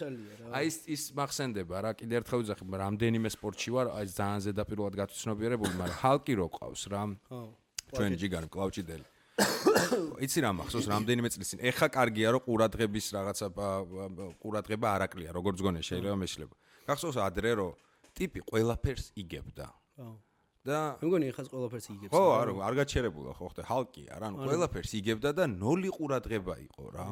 A: აი ის მახსენდება რა, კიდე ერთხელ ვიძახი, რამდენიმე სპორტში ვარ, აი ძალიან ზედაპირულად გაცნობიერებული, მაგრამ ჰალკი რო ყავს რა. ჩვენ ჯიგარი კლავჭიდელი. იცი რა მახსოვს რამდენიმე წლის წინ. ეხა კარგია რომ ყურადღების რაღაცა ყურადღება არ აკლია, როგორც გონე შეიძლება მეშლება. გახსოვს ადრე რომ ტიპი ყველაფერს იგებდა. და
B: მე მგონი ეხაც ყველაფერს იგებს.
A: ხო, არ გაჩერებულა ხო ხტე, ჰალკია რა, ყველაფერს იგებდა და 0 ყურადღება იყო რა.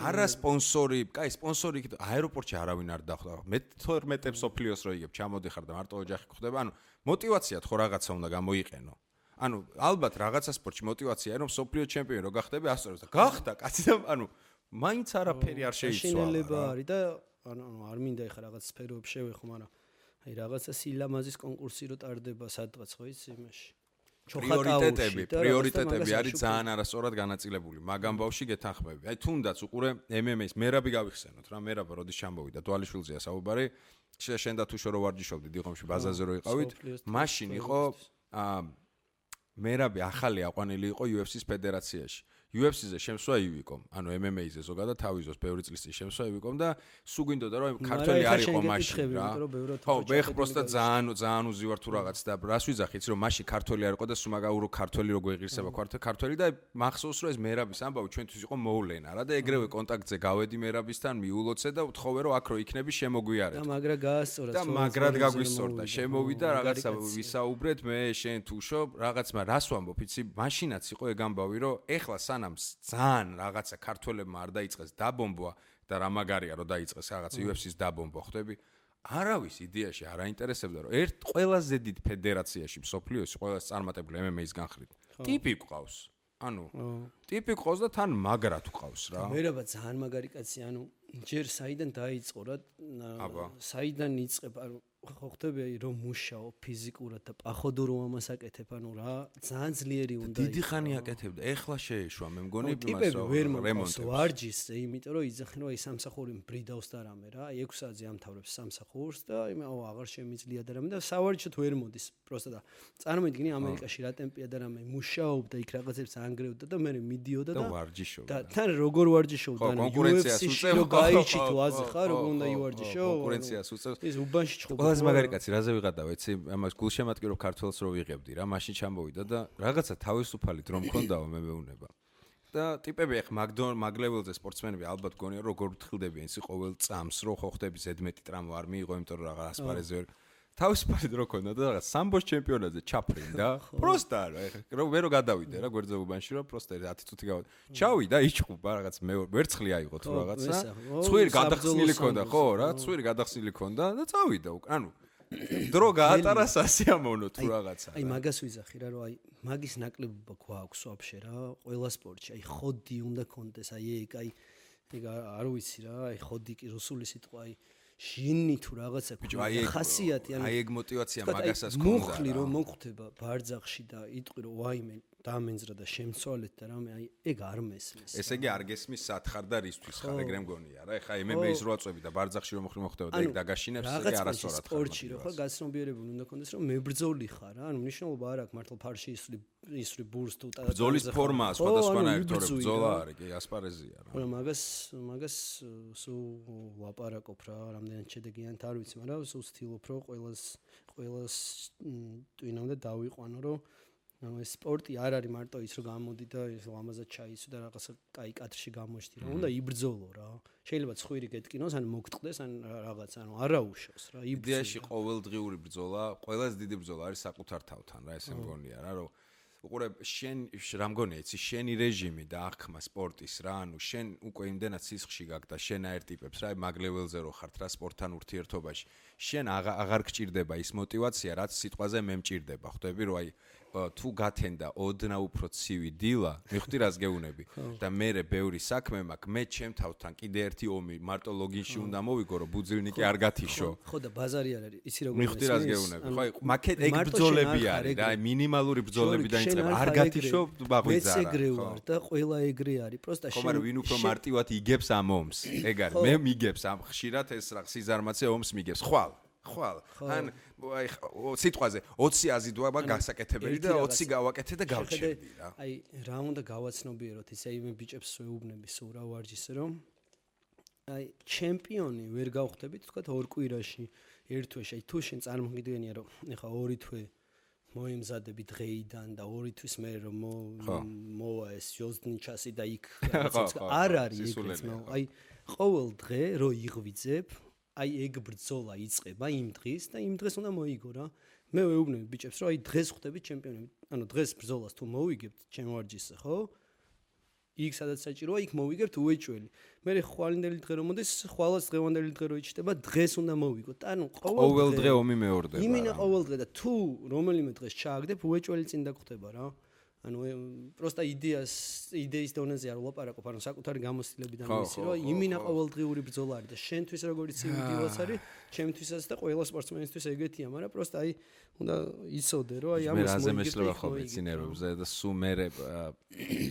A: არა სპონსორი, კაი სპონსორი იქ აეროპორტში არავინ არ დახვდა. მე 12 სოფლიოს რო იგებ, ჩამოდიხარ და მარტო ოჯახი გხვდება. мотиваციად ხო რაღაცა უნდა გამოიყენო. ალბათ რაღაცა სპორტში мотиваციაა რომ სოფლიო ჩემპიონი რო გახდები, ასწორებს და გახდა კაცი და მაინც არაფერი არ შეიცვალა.
B: შინელება არის და არ მინდა ეხა რაღაც სფეროებში შევეხო, მაგრამ აი რაღაცა სილამაზის კონკურსი რო ტარდება სადღაც ხო იცი იმაში.
A: პრიორიტეტები არის ძალიან არასწორად განაწილებული. მაგ ამბავში გეთანხმები. აი თუნდაც უყურე MMA-ს მერაბი გავიხსენოთ რა, მერაბა როდის ჩამოვიდა დვალიშვილზეა საუბარი. შენ და თუ შორო ვარჯიშობდი დიღომში ბაზაზე რო იყავით, მაშინ იყო მერაბი ახალი აყვანილი იყო UFC-ს ფედერაციაში. UFC-ზე შემსვა ივიკომ, ანუ MMA-ზე ზოგადად თავიზოს ბევრი წლის წინ შემსვა ივიკომ და სულ გვინდოდა რომ ქართველი არ იყო მაშინ რა. ხო, მე просто ძალიან უზივარ თუ რაღაც და რას ვიძახი, იცი რომ მაშინ ქართველი არ იყო და სულ მაგაურო ქართველი რო გვეღირსება ქართველი და მახსოვს რომ ეს მერაბის ამბავი ჩვენთვის იყო მოვლენა რა და ეგრევე კონტაქტზე გავედი მერაბისთან, მიულოცე და ვთხოვე რომ აქ რო იქნები შემოგვიარეთ.
B: და მაგრა გაასწორა.
A: და მაგრად გაგვისწორდა. შემოვიდა რაღაცა ვისაუბრეთ მე შენ თუშო რაღაცმა რას ვამბობ იცი მაშინაც იყო ეგ ამბავი რომ ეხლა სანამ ძალიან რაღაცა ქართველებმა არ დაიწყეს დაბომბვა და რა მაგარია რომ დაიწყეს რაღაცა UFC-ს დაბომბვა ხვდები არავის იდეაში არ აინტერესებდა რომ ერთ ყველაზე დიდ ფედერაციაში მსოფლიოში ყველაზე წარმატებული MMA-ის განხრით ტიპი ყავს ანუ ტიპი ყავს და თან მაგრა თუ ყავს რა
B: მერაბა ძალიან მაგარი კაცი ანუ ჯერ საიდან დაიწყო რა საიდან იწყებ ანუ ხო ხტები რომ მუშაო ფიზიკურად და პახოვდო რომ ამას აკეთებ ანუ რა ძალიან ძლიერი უნდა
A: დიდი ხანი აკეთებდა ეხლა შეეშვა მე მგონი
B: ტიპები ვერ მომყავს ვარჯიშზე იმიტომ რომ იძახენ რომ აი სამსახური მბრიდავს და რამე რა 6 საათზე ამთავრებს სამსახურს და იმაო აღარ შემიძლია და რამე და სავარჯიშოდ ვერ მოდის პროსტა და წარმოიდგინე ამერიკაში რა ტემპია და რამე მუშაობდა იქ რაღაცებს ანგრევდა და მე მიდიოდა და
A: ვარჯიშობდა
B: და თან როგორ ვარჯიშობდა ანუ UFC-ში რო გაიჩი თუ აზე ხარ როგორ უნდა ივარჯიშო
A: კონკურენციას უწევს
B: ის უბანში ჩხუბა
A: ყველაზე მაგარი კაცი რაზე ვიღადა ეცი ამას გულშემატკირო ქართველს რო ვიღებდი რა მაშინ ჩამოვიდა და რაღაცა თავისუფალი დრო მქონდაო მე მეუნება და ტიპები ახ მაგლეველზე სპორტსმენები ალბათ გონია როგორ ვთხილდებიან ისი ყოველ წამს რო ხო ხდები ზედმეტი ტრამვა არ მიიღო იმიტომ რომ რაღაც ასპარეზზე თავისუფალი დრო ქონდა და რაღაც სამბოს ჩემპიონატზე ჩაფრინდა პროსტა რა მე რო გადავიდე რა გვერდზე უბანში რომ პროსტა 10 წუთი გავიდა ჩავიდა იჭყუპა რაღაც მე ვერცხლი აიღო თუ რაღაცა ცხვირი გადახსნილი ქონდა ხო რა ცხვირი გადახსნილი ქონდა და წავიდა ანუ დრო გაატარა სასიამოვნო თუ რაღაცა
B: აი მაგას ვიზახი რა რომ აი მაგის ნაკლებობა გვაქვს ვაფშე რა ყველა სპორტში აი ხოდი უნდა კონდეს აი ეგ არ ვიცი რა აი ხოდი კი რუსული სიტყვა აი ჟინი თუ რაღაცა ხასიათი
A: ანუ აი ეგ мотиваცია მაგასაც ქონდა
B: მუხლი რომ მოხდება ბარძახში და იტყვი რომ ვაიმე დამენძრა და შემცვალეთ და რამე აი ეგ არ მესმის
A: ესე იგი არ გესმის სათხარ და რისთვის ხარ ეგრე მგონია რა ეხა MMA-ის რო აწვევი და ბარძახში რომ მოხდება და ეგ დაგაშინებს ეგ არასწორად ხარ
B: სპორტში რო ხარ გაცნობიერებული უნდა კონდეს რომ მებრძოლი ხარ რა ანუ მნიშვნელობა არ აქვს მართლა ფარში ისვრი ბურს თუ
A: ბრძოლის ფორმა სხვადასხვანაირ თორე ბრძოლა არის კი ასპარეზია რა
B: მაგრამ მაგას სულ ლაპარაკობ რა რამდენად შედეგიანად არ ვიცი მაგრამ სულ ვცდილობ რომ ყველას ტვინამდე დავიყვანო რომ ანუ ეს სპორტი არ არის მარტო ის რომ გამოდი და ეს ლამაზად ჩაისვი და რაღაცა კაი კადრში გამოჩდი რა უნდა იბრძოლო რა შეიძლება ცხვირი გეტკინოს ან მოგტყდეს ან რაღაც ანუ არაუშავს რა
A: იდეაში ყოველდღიური ბრძოლა ყველაზე დიდი ბრძოლა არის საკუთარ თავთან რა ესე მგონია რა რომ უყურებ შენ რა მგონია იცი შენი რეჟიმი და აღქმა სპორტის რა ანუ შენ უკვე იმდენად სისხლში გაქვს და შენ აერ ტიპებს რა მაგლეველზე რო ხართ რა სპორტთან ურთიერთობაში შენ აღარ გჭირდება ის мотиваცია რაც სიტყვაზე მე მჭირდება ხვდები რომ აი თუ გათენდა ოდნა უფრო ცივი დილა მიხდი რას გეუნები და მე ბევრი საქმე მაქვს მე ჩემ თავთან კიდე ერთი ომი მარტო ლოგინში უნდა მოვიგო რომ ბუძილნიკი არ გათიშო
B: ხო და ბაზარი არ არის იცი როგორ
A: მიხდი რას გეუნები ხო მაგეთ ეგ ბრძოლები არის რა მინიმალური ბრძოლები დაიწყება არ გათიშო ბაღვიძარა
B: მეც ეგრე ვარ და ყველა ეგრე არის პროსტა
A: შენ ხომ ვინ უფრო მარტივად იგებს ამ ომს ეგ არის მე მიგებს ამ ხშირად ეს რა სიზარმაცე ომს მიგებს ხვალ ან აი სიტყვაზე 20 აზიდვა გასაკეთებელი და 20 გავაკეთე და გავჩერდი რა
B: აი რა უნდა გავაცნობიეროთ ისე იმ ბიჭებს ვეუბნები სულ რა ვარჯიშზე რომ აი ჩემპიონი ვერ გავხდებით თქვა 2 კვირაში ერთ თვეში აი თუ შენ წარმოგიდგენია რომ ეხა 2 თვე მოემზადები დღეიდან და 2 თვის მერე რომ მოვა ეს ჯოზნიჩასი და იქ არ არის ეგეც აი ყოველ დღე რო იღვიძებ აი ეგ ბრძოლა იწყება იმ დღის და იმ დღეს უნდა მოიგო რა მე ვეუბნები ბიჭებს რომ აი დღეს ხვდებით ჩემპიონები ანუ დღეს ბრძოლას თუ მოვიგებთ ჩემ ვარჯიშზე ხო იქ სადაც საჭიროა იქ მოვიგებთ უეჭველი მე ხვალინდელი დღე რომ მოდის ხვალას დღევანდელი დღე რო იჭდება დღეს უნდა მოვიგოთ ანუ
A: ყოველ დღე ომი მეორდება
B: იმინა ყოველ დღე და თუ რომელიმე დღეს ჩააგდებ უეჭველი წინ დაგხვდება რა ანუ პროსტა იდეის დონეზე არ ვლაპარაკობ ანუ საკუთარი გამოცდილებიდან ვიცი რომ იმინა ყოველდღიური ბრძოლა არის და შენთვის როგორც იდეალს არის ჩემთვისაც და ყველა სპორტსმენისთვის ეგეთია მაგრამ პროსტა აი უნდა იცოდე რომ აი ამას
A: მოიგებ მე რაზემესლება ხოლმე ცინერებზე და სულ მე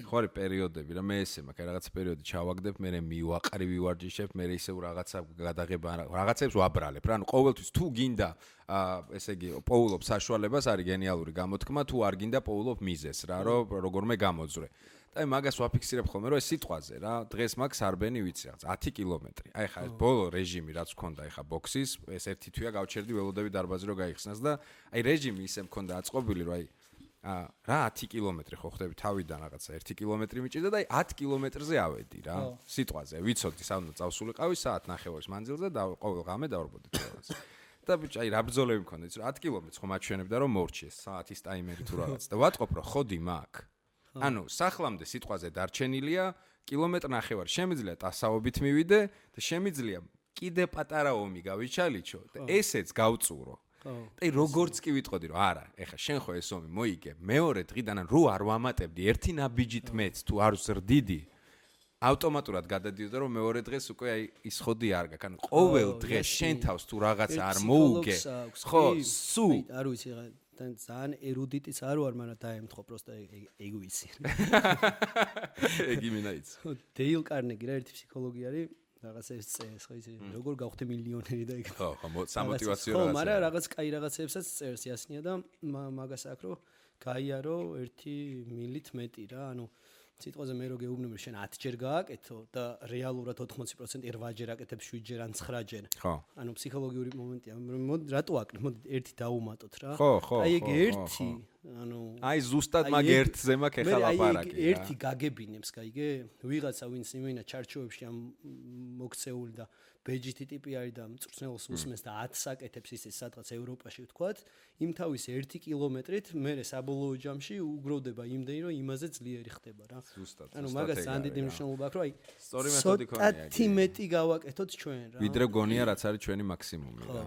A: ხო არის პერიოდები რა მე ესე მაქვს რაღაცა პერიოდი ჩავაგდებ მე მივაყრი ვივარჯიშებ მე ისე რაღაცა გადაღება რაღაცებს ვაბრალებ რა ანუ ყოველთვის თუ გინდა ესე იგი პოულობ საშუალებას არის გენიალური გამოთქმა თუ არ გინდა პოულობ მიზეს რა რომ როგორმე გამოძრე და აი მაგას ვაფიქსირებ ხოლმე, რომ ეს სიტყვაზე რა, დღეს მაქვს არბენი ვიცი რაღაც 10 კილომეტრი. აი ხა ეს ბოლო რეჟიმი რაც მქონდა აი ხა ბოქსის, ეს ერთი თვეა გავჩერდი ველოდები დარბაზი რომ გაიხსნას და აი რეჟიმი ისე მქონდა აწყობილი, რომ აი რა 10 კილომეტრი ხო ხდები თავიდან რაღაცა 1 კილომეტრი მიჭირდა და აი 10 კილომეტრზე ავედი რა. სიტყვაზე ვიცოდი სანამ წავსულიყავი საათ ნახევარის მანძილზე და ყოველ ღამე დავარბოდი თვალს. და ბიჭი აი რა ბრძოლები მქონდა იცი 10 კილომეტრს ხომ აჩვენებდა რომ მორჩიეს საათის ტაიმერი თუ რაღაც და ვატყობ რომ ხოდი მაქვს. ანუ სახლამდე სიტყვაზე დარჩენილია კილომეტრი ნახევარი შემიძლია ტასაობით მივიდე და შემიძლია კიდე პატარა ომი გავიჩალიჩო და ესეც გავწურო. და როგორც კი ვიტყოდი რომ არა ეხა შენ ხო ეს ომი მოიგე მეორე დღიდან რო არ ვამატებდი ერთი ნაბიჯით მეც თუ არ ზრდიდი ავტომატურად გადადიოდა რომ მეორე დღეს უკვე აი ის ხოდი არ გაქვს ანუ ყოველ დღეს შენ თავს თუ რაღაცა არ მოუგე ხო სუ
B: არ ვიცი რა ძალიან ერუდიტიც არ ვარ მაგრამ დაემთხო პროსტა ეგ ვიცი
A: ეგ იმინაიც
B: დეილ კარნეგი რა ერთი ფსიქოლოგი არის რაღაც ეს წერს ხო იცი როგორ გავხდე მილიონერი და ეგ
A: ხო სამოტივაციო
B: რაღაცა ხო მაგრამ რაღაც კაი რაღაცებსაც წერს იასნია და მაგას აქ რომ გაიარო 1 მილით მეტი რა ანუ სიტყვაზე მე რო გეუბნები შენ 10 ჯერ გააკეთო და რეალურად 80% 8 ჯერ აკეთებ 7 ჯერ ან 9 ჯერ
A: ხო
B: ანუ ფსიქოლოგიური მომენტია მოდი რატო აკეთებ მოდი ერთი დავუმატოთ რა
A: ხო
B: აი ეგ ერთი ანუ
A: აი ზუსტად მაგ ერთზე მაქვს ეხლა ლაპარაკი
B: აი ერთი გაგებინებს გაიგე ვიღაცა ვინც იმენა ჩარჩოებში ამ მოქცეული და ბეჯითი ტიპი არის და მწვრთნელს უსმენს და 10 აკეთებს ისე სადღაც ევროპაში ვთქვათ იმ თავის 1 კილომეტრით მე საბოლოო ჯამში უგროვდება იმდენი რომ იმაზე ძლიერი ხდება რა
A: ზუსტად
B: ანუ მაგას ძალიან დიდი მნიშვნელობა აქვს რომ აი
A: სწორი მეთოდი ქონია
B: ცოტათი მეტი გავაკეთოთ ჩვენ რა
A: ვიდრე გონია რაც არის ჩვენი მაქსიმუმი რა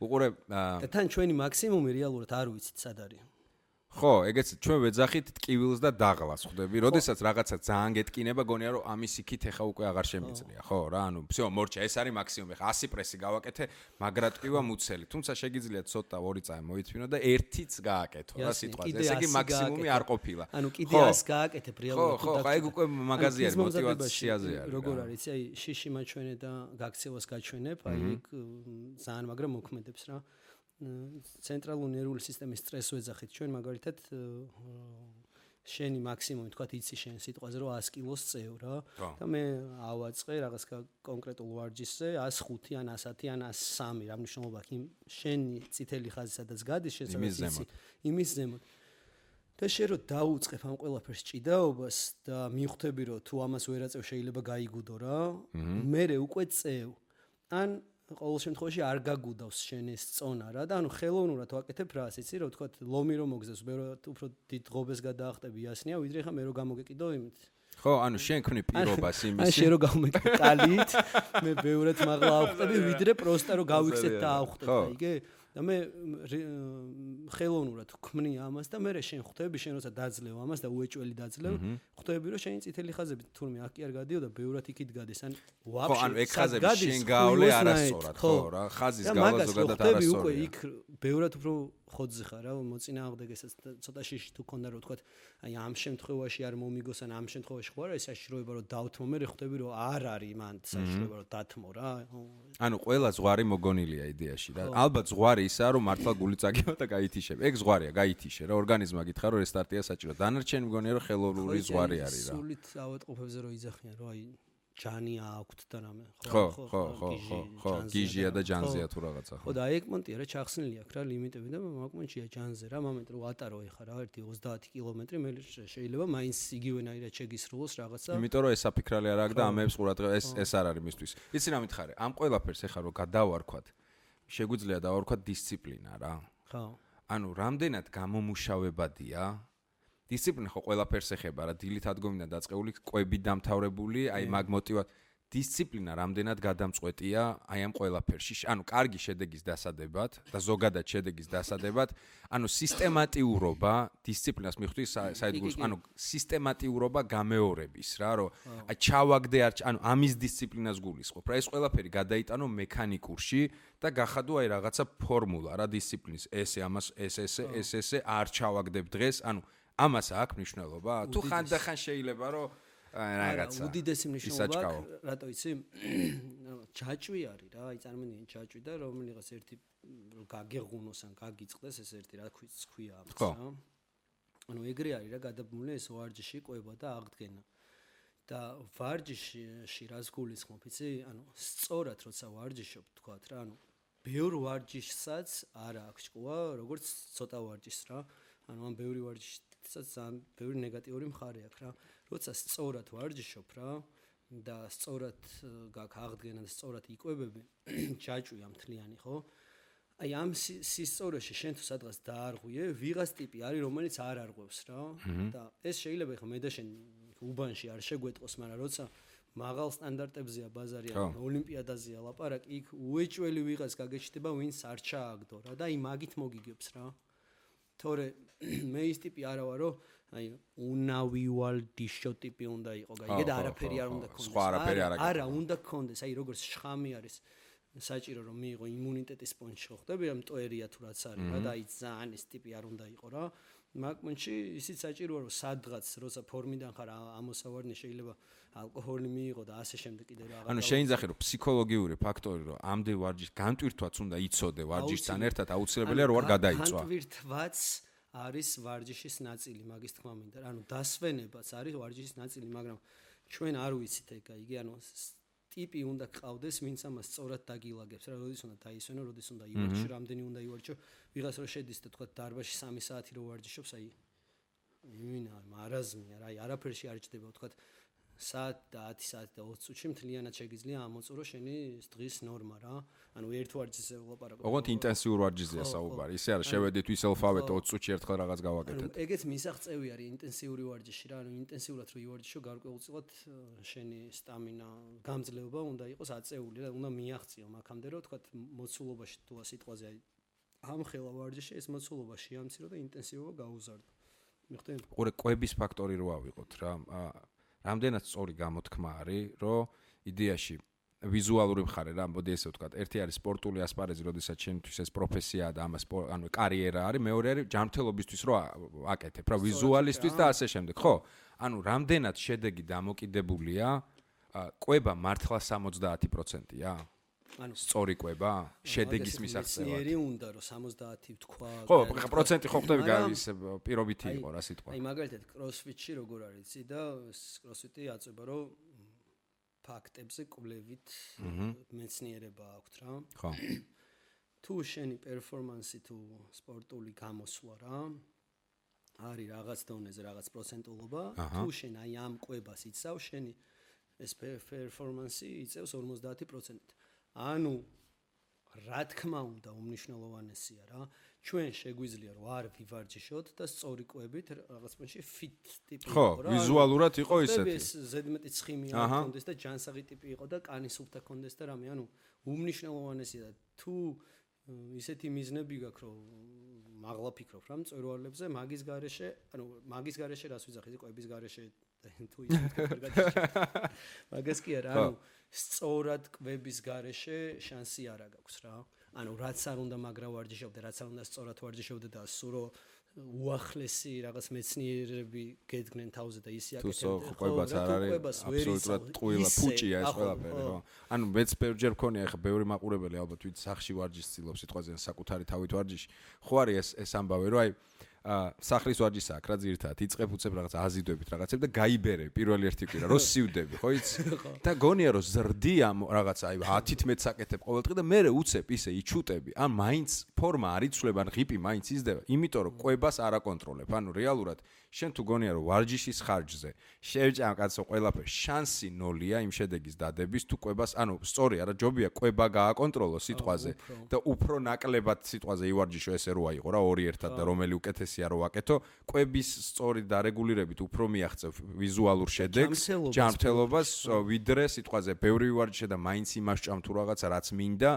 A: უყურე
B: და თან ჩვენი მაქსიმუმი რეალურად არ ვიცით სად არის
A: ხო, ეგეც ჩვენ ვეძახით ტკივილს და დაღლას ხვდები. როდესაც რაღაცა ძალიან გეტკინება, გონია რომ ამის იქით ეხა უკვე აღარ შემიძლია, ხო რა, ანუ всё, მორჩა, ეს არის მაქსიმუმი. ხა 100 პრესი გავაკეთე, მაგრა ტკივა მუცელი. თუმცა შეგიძლია ცოტა 2 წამი მოითმინო და ერთიც გააკეთო რა სიტყვაზე. ესე იგი მაქსიმუმი არ ყოფილა.
B: ანუ კიდე 100 გააკეთებ რეალურად.
A: ხო, აი უკვე მაგაზი არის მოტივაციაზე არის.
B: როგორ არის, აი შიში მაჩვენე და გაქცევას გაჩვენებ, აი ეგ ძალიან მაგრა მოქმედებს რა. ცენტრალური ნერვული სისტემის სტრესს ვეძახით ჩვენ მაგალითად შენი მაქსიმუმი თქვა იცი შენ სიტყვაზე რომ 100 კილოს წევ რა და მე ავაწყე რაღაც კონკრეტულ ვარჯიშზე 105 ან 110 ან 103 რა მნიშვნელობა აქვს იმ შენი წითელი ხაზი სადაც გადის შენ სადაც იმის ზემოთ და შენ რო დაუწყებ ამ ყველაფერს ჭიდაობას და მიხვდები რომ თუ ამას ვერ აწევ შეიძლება გაიგუდო რა მე უკვე წევ ან ყოველ შემთხვევაში არ გაგუდავს შენ ეს წონა რა და ანუ ხელოვნურად ვაკეთებ რას იცი რომ თქვა ლომი რომ მოგზავს მე უფრო დიდ ღობეს გადაახტები იასნია ვიდრე ხა მე რო გამოგეკიდო იმით
A: ხო ანუ შენ ქმნი პირობას იმის
B: ან შენ რო გამოგეკიდო კალით მე ბევრად მაღლა ავხტები ვიდრე პროსტა რო გავიქცეთ და ავხტებ აიგე და მე ხელოვნურად ვქმნი ამას და მე შენ ხვდები შენ როცა დაძლევ ამას და უეჭველი დაძლევ ხვდები რომ შენი წითელი ხაზები თურმე აქ კი არ გადიოდა ბევრად იქით გადის ან
A: ვაფშე ხო ანუ ეგ ხაზები შენ გავლე არასწორად ხო რა ხაზის გავლა ზოგადად არასწორია
B: უკვე იქ ბევრად უფრო ხოძზე ხარ რა მოწინააღმდეგესაც ცოტა შიში თუ ქონდა რომ თქვა აი ამ შემთხვევაში არ მომიგოს ან ამ შემთხვევაში ხო არა ეს საშიშროება რომ დავთმო მე ხვდები რომ არ არის მან საშიშროება რომ დათმო რა
A: ანუ ყველა ზღვარი მოგონილია იდეაში რა ალბათ ზღვარი ისაა რომ მართლა გული წაგება და გაითიშებ ეგ ზღვარია გაითიშე რა ორგანიზმა გითხრა რომ რესტარტია საჭირო დანარჩენი მგონია რომ ხელოვნური ზღვარი არის რა
B: სულით ავატყოფებზე რომ იძახიან რომ აი ჯანი აქვთ და რამე
A: ხო გიჟია და ჯანზეა თუ რაღაცა
B: ხო და აი ეკმონტია რა ჩახსნილი აქვს რა ლიმიტები და მაგმონტია ჯანზე რა მომენტ რომ ატარო ეხა რა ერთი 30 კილომეტრი მე შეიძლება მაინც იგივენაირად შეგისრულოს რაღაცა
A: იმიტომ რომ ეს საფიქრალი არ აქვს და ამებს ყურადღება ეს არ არის მისთვის იცი რა მითხარი ამ ყველაფერს ეხა რომ გადავარქვათ შეგვიძლია დავარქვათ დისციპლინა რა
B: ხო
A: ანუ რამდენად გამომუშავებადია დისციპლინა ხო ყველაფერს ეხება რა დილით ადგომიდან დაწყეული კვები დამთავრებული აი მაგ მოტივად დისციპლინა რამდენად გადამწყვეტია აი ამ ყველაფერში ანუ კარგი შედეგის დასადებად და ზოგადად შედეგის დასადებად ანუ სისტემატიურობა დისციპლინას მიხვდი საერთოდ ანუ სისტემატიურობა გამეორების რა რომ აი ჩავაგდე ანუ ამის დისციპლინას გულისხმობ რა ეს ყველაფერი გადაიტანო მექანიკურში და გახადო აი რაღაცა ფორმულა რა დისციპლინის ესე ამას ესე არ ჩავაგდებ დღეს ანუ ამას აქვს მნიშვნელობა თუ ხანდახან შეიძლება რომ რაღაცა
B: უდიდესი მნიშვნელობა აქვს რატო იცი ჯაჭვი არის რა აი წარმოვიდგინე ჯაჭვი და რომელიღაც ერთი გაგეღუნოს ან გაგიწყდეს ეს ერთი რა ქვია ამას რა ანუ ეგრე არის რა გადაბმული ეს ვარჯიში ყვება და აღდგენა. და ვარჯიში რას გულისხმობ, იცი? ანუ სწორად როცა ვარჯიშობ, თქვათ რა, ანუ ბევრ ვარჯიშსაც არ აქვს ჭკუა, როგორც ცოტა ვარჯიშს რა. ანუ ამ ბევრი ვარჯიშსაც ძალიან ბევრი ნეგატიური მხარე აქვს რა. როცა სწორად ვარჯიშობ რა და სწორად გაქვს აღდგენა და სწორად იკვებები, ჯაჭვია მთლიანი, ხო? აი ამ სისწორეში შენ თუ სადღაც დაარღვიე, ვიღაც ტიპი არის, რომელიც არ არღვევს რა. და ეს შეიძლება ხა მე და შენ უბანში არ შეგვეტყოს, მაგრამ როცა მაღალ სტანდარტებზეა ბაზარი, ოლიმპიადაზეა ლაპარაკი, იქ უეჭველი ვიღაც გაგეჩნდება, ვინც არ ჩააგდო რა და აი მაგით მოგიგებს რა. თორე მე ის ტიპი არა ვარ, რომ აი უნავივალდიშო ტიპი უნდა იყო, გაიგე და არაფერი არ უნდა ქონდეს.
A: სხვა არაფერი არ აქვს.
B: არა, უნდა ქონდეს, აი როგორც შხამი არის საჭირო რომ მიიღო იმუნიტეტის პონჩი ხო ხდები, ამ ტოერია თუ რაც არის რა და აი ძალიან ეს ტიპი არ უნდა იყო რა. მაგ პონჩი ისიც საჭიროა რომ სადღაც როცა ფორმიდან ხარ ამოსავარნი შეიძლება ალკოჰოლი მიიღო და ასე შემდეგ კიდე რა.
A: ანუ შეინძახე რომ ფსიქოლოგიური ფაქტორი რომ ამდენ ვარჯიშს განტვირთვაც უნდა იცოდე ვარჯიშთან ერთად აუცილებელია რომ არ გადაიწვა.
B: განტვირთვაც არის ვარჯიშის ნაწილი, მაგის თქმა მინდა. ანუ დასვენებაც არის ვარჯიშის ნაწილი, მაგრამ ჩვენ არ ვიცით ეგ, იგი ანუ ტიპი უნდა ყავდეს, ვინც ამას სწორად დაგილაგებს რა, როდის უნდა დაისვენო, როდის უნდა ივარჯიშო, რამდენი უნდა ივარჯიშო. ვიღაც რო შედის და თქვა დარბაზში 3 საათი რო ვარჯიშობს, აი იმინა, მარაზმია რა, აი არაფერში არ ჭდება, თქვა საათ და 10 საათი და 20 წუთში მთლიანად შეგიძლია ამოწურო შენი დღის ნორმა რა. ანუ ერთ ვარჯიშზე ვლაპარაკობ.
A: ოღონდ ინტენსიურ ვარჯიშზეა საუბარი. ისე არა შევედით ვისელფავეთ 20 წუთში ერთხელ რაღაც გავაკეთეთ.
B: ანუ ეგეც მისაღწევი არის ინტენსიური ვარჯიში რა. ანუ ინტენსიურად რო ივარჯიშო, გარკვეულწილად შენი სტამინა, გამძლეობა უნდა იყოს აწეული და უნდა მიაღწიო მაგამდე რომ თქვა მოცულობაში თუ სიტყვაზე აი ამხელა ვარჯიში ეს მოცულობა შეამცირო და ინტენსივობა გაუზარდო. მიხდენ?
A: ყურე კვების ფაქტორი რო ავიღოთ რა. რამდენად სწორი გამოთქმა არის, რომ იდეაში ვიზუალური მხარე რა, მოდი ესე ვთქვათ, ერთი არის სპორტული ასპარეზი, როდესაც შენთვის ეს პროფესიაა და ამას ანუ კარიერა არის, მეორე არის ჯანმრთელობისთვის რო აკეთებ, რა, ვიზუალისტვის და ასე შემდეგ, ხო? ანუ რამდენად შედეგი დამოკიდებულია კვება მართლა 70%-ია? ანუ სწორი კვება შედეგის მისაღწევად.
B: მეცნიერი უნდა რომ 70 თქვა.
A: ხო, პროცენტი ხო ხდები ის პირობითი იყო რა სიტყვა.
B: აი მაგალითად კროსფიტში როგორ არის იცი და კროსფიტი აწובה რომ ფაქტებზე კვლევით მეცნიერება აქვს რა.
A: ხო.
B: თუ შენი პერფორმანსი თუ სპორტული გამოსვლა რა არის რაღაც დონეზე რაღაც პროცენტულობა, თუ შენ აი ამ კვებას იცავ, შენი ეს პერფორმანსი იწევს 50%. ანუ რა თქმა უნდა უმნიშვნელოვანესია რა ჩვენ შეგვიძლია რომ არ ვივარჯიშოთ და სწორი კვებით რაღაც პონჩი ფიტ ტიპი
A: იყო რა. ხო, ვიზუალურად იყო ისეთი.
B: ეს ზედმეტი ცხიმი არ ქონდეს და ჯანსაღი ტიპი იყო და კანის სუფთა ქონდეს და რამე, ანუ უმნიშვნელოვანესია თუ ისეთი მიზნები გაქვს რომ მაღლა ფიქრობ რა მწვერვალებზე, მაგის გარეშე, ანუ მაგის გარეშე რას ვიძახი, კვების გარეშე თუ ისეთი მაგას კი არა, ანუ სწორად კვების გარეშე შანსი არ აქვს რა. ანუ რაც არ უნდა მაგრა ვარჯიშობდე, რაც არ უნდა სწორად ვარჯიშობდე და სურო უახლესი რაღაც მეცნიერები გედგნენ თავზე და ისი აკეთებდნენ.
A: თუ ყვებაც არ არის აბსოლუტურად ტყუილა ფუჭია ეს ყველაფერი რა. ანუ მეც ბევრჯერ მქონია ხა ბევრი მაყურებელი ალბათ ვით სახში ვარჯიშს ცდილობს სიტყვაზე საკუთარი თავით ვარჯიში. ხო არის ეს ამბავი რომ აი სახლის ვარჯიშს აქ რა ძირითადად იწებ უწებ რაღაც აზიდვებით რაღაცებ და გაიბერე პირველი ერთი კვირა რო სივდები ხო იცი და გონია რომ ზრდი ამ რაღაც აი 10-11 საკეთებ ყოველდღე და მე უწებ ისე იჩუტები ან მაინც ფორმა არ იცვლება ან ღიპი მაინც იზრდება იმიტომ რომ კვებას არ აკონტროლებ ანუ რეალურად შენ თუ გონია რომ ვარჯიშის ხარჯზე შევჭამ კაცო ყველაფერი შანსი ნოლია იმ შედეგის დადების თუ კვებას ანუ სწორი არა ჯობია კვება გააკონტროლო სიტყვაზე და უფრო ნაკლებად სიტყვაზე ივარჯიშო ესე რო აიყო რა ორი ერთად და რომელი უკეთესია რო ვაკეთო კვების სწორი დარეგულირებით უფრო მიაღწევ ვიზუალურ შედეგს ჯანმრთელობას ვიდრე სიტყვაზე ბევრი ვარჯიშე და მაინც იმას ჭამ თუ რაღაცა რაც მინდა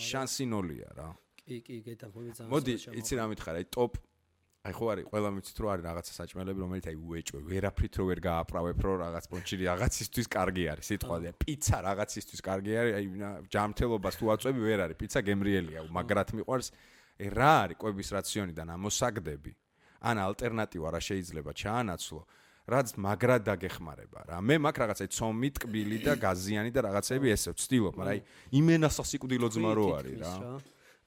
A: შანსი ნოლია რა
B: კი გეტყვი ძალიან
A: მოდი იცი რა მითხარ აი ტოპ აი ხო არის ყველა მიცით რომ არის რაღაცა საჭმელები რომელიც აი უეჭვე ვერაფრით რო ვერ გააправებ რო რაღაც პონჩი რაღაცისთვის კარგი არის სიტყვაზე პიცა რაღაცისთვის კარგი არის აი ჯანმრთელობას თუ აწვევი ვერ არის პიცა გემრიელია მაგრად მიყვარს რა არის კვების რაციონიდან ამოსაგდები ან ალტერნატივა რა შეიძლება ჩაანაცვლო რაც მაგრად დაგეხმარება რა მე მაგ რაღაცა ცომი ტკბილი და გაზიანი და რაღაცები ესე ვცდილობ მაგრამ აი იმენასა სიკვდილო ძმა რო არის რა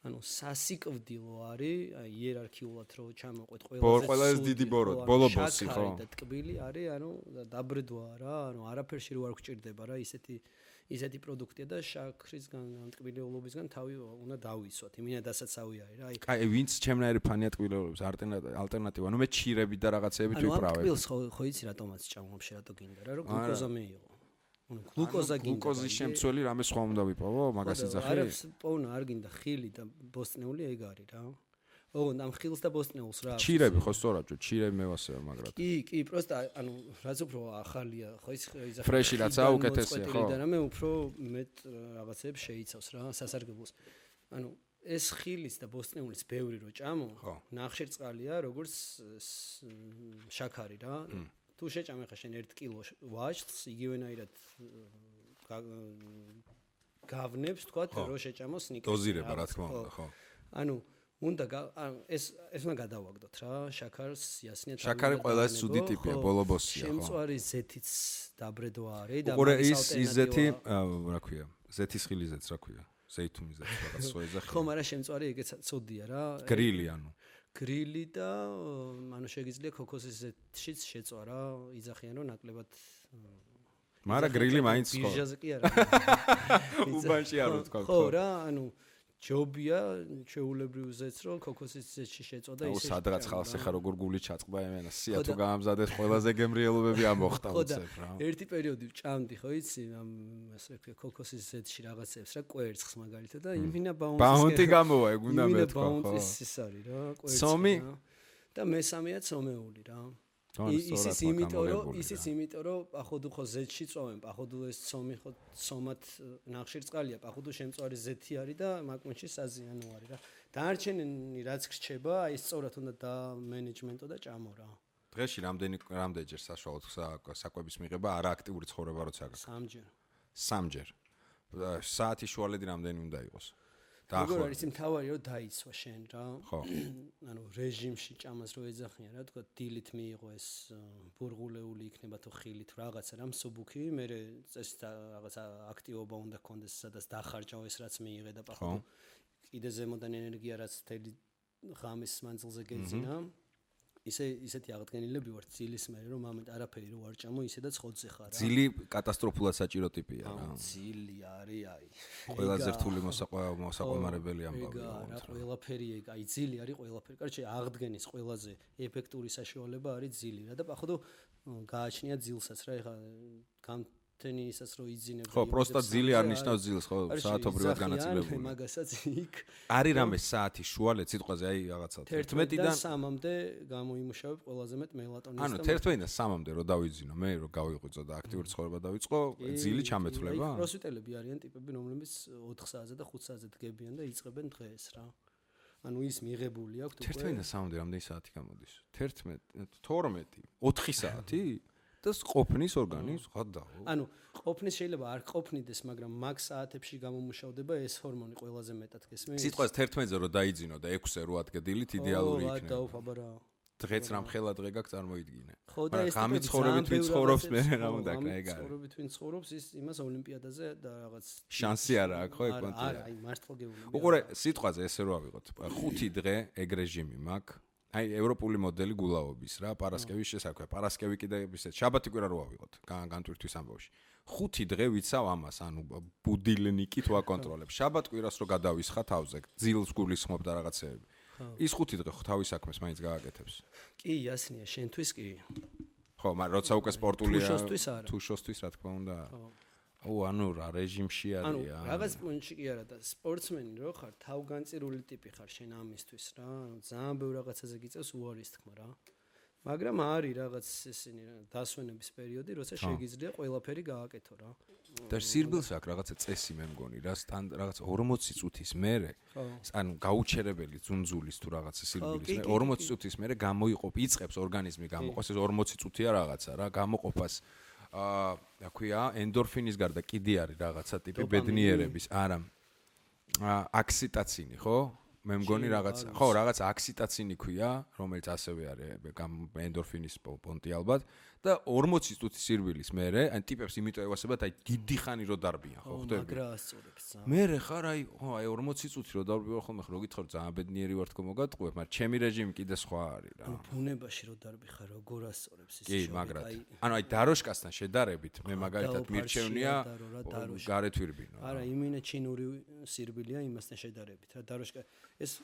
B: ანუ სასიკვდილო არის, აი იერარქიულად რო ჩამოყვეთ
A: ყველაზე დიდი ბოლო ბოსი ხო?
B: და ტკბილი არის, ანუ დაბრდვაა რა, ანუ არაფერში რო არ გჭირდება რა, ისეთი პროდუქტია და შაქრისგან, ან ტკბილეულობისგან თავი უნდა დავისვათ. იმინადასაც ავი არის რა.
A: აი ვინც ჩემნაირი ფანია ტკბილეულობის ალტერნატივა, ანუ მე ჩირები და რაღაცეებით ვიპრავებ.
B: ანუ ტკბილს ხო იცი რატომაც ჭამობ რატო გინდა რა, რომ გლუკოზა მეიღო. ანუ გლუკოზა გინდა.
A: გლუკოზის შემცველი რამე სხვა უნდა ვიპოვო, მაგას იძახი?
B: არაფერს პოვნა არ გინდა, ხილი და ბოსტნეული ეგ არის რა. ოღონდ ამ ხილს და ბოსტნეულს რა.
A: ჩირები ხო სწორად, ჩირები მევასება მაგრად.
B: კი, პროსტა ანუ რაც უფრო ახალია, ხო ის იძახი.
A: ფრეში რაცა უკეთესია, ხო?
B: და რამე უფრო მეტ რაღაცებს შეიცავს რა, სასარგებლოს. ანუ ეს ხილის და ბოსტნეულის ბევრი რო ჭამო, ნახშირწყალია, როგორც შაქარი რა. თუ შეჭამე ხა შენ 1 კილო ვაშლს, იგივენაირად გავნებს, თქვათ, რომ შეჭამოს სნიკერსი.
A: დოზირება, რა თქმა უნდა, ხო.
B: ანუ უნდა ეს უნდა გადავაგდოთ რა, შაქარს იასნია თავი.
A: შაქარი ყველაზე ცუდი ტიპია, ბოლო-ბოსია, ხო.
B: შემწვარი ზეთიც დაბრედვა არის და
A: უყურე ის ზეთი, რა ქვია, ზეთის ხილიზეც რა ქვია, ზეითუნიზეც რაღაც სხვა ეძახი.
B: ხო, მაგრამ შემწვარი ეგეც ცუდია რა.
A: გრილი ანუ.
B: გრილი და ანუ შეგიძლია ქოქოსის ზეთშიც შეწვა რა, იძახიან რომ ნაკლებად
A: მაგრამ გრილი მაინც ხო.
B: ბიჟაზე კი არა.
A: უბანში არ ვთქვა.
B: ხო რა, ანუ ჯობია შეულებრივ ზეთს რომ ქოქოსის ზეთში შეწვა და ისე.
A: სადღაც ხალხს ეხა როგორ გული ჩაწყდა ემენა სია თუ გაამზადეს ყველაზე გემრიელობები ამოხტა უცებ რა.
B: ერთი პერიოდი ვჭამდი ხო იცი ამ ასე ვქო ქოქოსის ზეთში რაღაცებს რა კვერცხს მაგალითად და იმინა
A: ბაუნტი გამოვა ეგ უნდა მეთქვა ხო.
B: ბაუნტის ის არის რა კვერცხი და მესამეა ცომეული რა. ისიც იმიტომ რომ პახოდუ ხო ზეთში წოვენ, პახოდუ ეს ცომი ხო ცომად ნახშირწყალია, პახოდუ შემწვარი ზეთი არის და მაკმუნში საზიანო არის რა. დანარჩენი რაც გრჩება, აი სწორად უნდა და მენეჯმენტო და ჭამო რა.
A: დღეში რამდენჯერ საშუალოდ საკვების მიღება არა აქტიური ცხოვრება როცა გაქვს? 3ჯერ. საათი შუალედი რამდენი უნდა იყოს?
B: როგორ არის მთავარი რომ დაიცვა შენ რა.
A: ხო.
B: ანუ რეჟიმში ჭამას რო ეძახიან რა, თქვა დილით მიიღო ეს ბურღულეული იქნება თუ ხილი თუ რაღაცა რა მსუბუქი, მე წესით რაღაცა აქტივობა უნდა გქონდეს, სადაც დახარჯავ ეს რაც მიიღე და პახო. კიდე ზემოდან ენერგია რაც თელი ღამის მანძილზე გეძინა. ისეთი აღდგენილები ვარ ძილის მერე რომ ამით არაფერი რო არ ჭამო ისედაც ხოძზე ხარ რა.
A: ძილი კატასტროფულად საჭირო ტიპია რა.
B: ძილი არის აი.
A: ყველაზე რთული მოსაყვამარებელი ამბავი
B: რა. ყველაფერი ეგ აი ძილი არის ყველაფერი. კარჩე აღდგენის ყველაზე ეფექტური საშუალება არის ძილი რა და პახოდო გააჩნია ძილსაც რა ეხა თენისაც რო იძინებ.
A: ხო, პროსტა ძილი არ ნიშნავს ძილს, ხო, საათობრივად განაწილებული.
B: მაგასაც იქ
A: არის რამე საათი შუალედ სიტყვაზე აი რაღაცა
B: 11-დან 3-მდე გამოიმუშავებ ყველაზე მეტ მელატონინს.
A: ანუ 11-დან 3-მდე რო დავიძინო, მე რო გავიღვიძო და აქტიური ცხოვრება დავიწყო, ძილი ჩამეთვლება.
B: აი პროსვიტელები არიან ტიპები, რომლებიც 4 საათზე და 5 საათზე დგებიან და იწყებენ დღეს რა. ანუ ის მიღებული აქვს უკვე
A: 11-დან 3-მდე რამდენი საათი გამოდის? 11, 12, 4 საათი? და ყოფნის ორგანიზმს ხადაო.
B: ანუ ყოფნის შეიძლება არ ყოფნიდეს, მაგრამ მაგ საათებში გამომუშავდება ეს ჰორმონი ყველაზე მეტად გესმის.
A: სიტყვას 11-ზე რო დაიძინო და 6-ზე რო ადგე დილით იდეალური იქნება.
B: ო, დაუფაბა რა.
A: დღეც რამ ხელა დღე გაქვს წარმოიდგინე.
B: ხო და ეს
A: ღამით ცხოვრებით ვინ ცხოვრობს მე რა უნდა კრა ეგ არის.
B: ცხოვრებით ვინ ცხოვრობს ის იმას ოლიმპიადაზე და რაღაც
A: შანსი არა აქვს ხო ეგ კონტია.
B: არა, აი მართლა გეუბნები.
A: უყურე სიტყვაზე ესე რო ავიღოთ. 5 დღე ეგ რეჟიმი მაქვს. აი ევროპული მოდელი გულაობის რა, პარასკევის შესაქმე. პარასკევი კიდე ისეთ შაბათი კვირა რო ავიღოთ განტვირთვის ამბავში. 5 დღე ვიცავ ამას, ანუ ბუდილნიკით ვაკონტროლებ. შაბათ კვირას რო გადავისხა თავზე, ძილს გულისხმობ და რაღაცეები. ის 5 დღე ხო თავის საქმეს მაინც გააკეთებს.
B: კი, იასნია, შენთვის კი.
A: ხო, მაგრამ როცა უკვე სპორტულია,
B: თუ
A: შოსთვის რა თქმა უნდა. ანუ რა რეჟიმში არის?
B: ანუ რაღაც პუნქტში კი არა და სპორტსმენი რო ხარ, თავგანწირული ტიპი ხარ შენ ამისთვის რა. ანუ ძალიან ბევრ რაღაცაზე გიწევს უარის თქმა რა. მაგრამ არის რაღაც ესენი დასვენების პერიოდი, როცა შეგიძლია ყველაფერი გააკეთო რა.
A: და სირბილს აქვს რაღაცა წესი მე მგონი რა, რაღაც 40 წუთის მერე, ანუ გაუჩერებელი ძუნძულის თუ რაღაცა სირბილის მერე 40 წუთის მერე გამოიყოფ, იწყებს ორგანიზმი გამოყოს ეს 40 წუთია რაღაცა რა, გამოყოფას რა ქვია, ენდორფინის გარდა კიდე არის რაღაცა ტიპი ბედნიერების, არა. აქსიტაცინი, ხო? მე მგონი რაღაცა, ხო, რაღაცა აქსიტაცინი ქვია, რომელიც ასევე არის ენდორფინის პონტი ალბათ და 40 წუთის სირბილის მერე, ან ტიპებს იმიტომ ევასებათ, აი დიდი ხანი რო დარბიან, ხო ხდები?
B: მაგრა ასწორებს.
A: მერე ხარ აი 40 წუთი რო დარბიან ხოლმე, ხო გითხარ ძალიან ბედნიერი ვარ თქო მოგატყუებ, მაგრამ ჩემი რეჟიმი კიდე სხვა არის რა.
B: ბუნებაში რო დარბი ხარ, როგორ ასწორებს ის
A: კი, მაგრად. ანუ აი დაროშკასთან შედარებით, მე მაგალითად მირჩევნია გარეთ ვირბინო.
B: არა, იმინე ჩინური სირბილია იმასთან შედარებით, რა დაროშკა ეს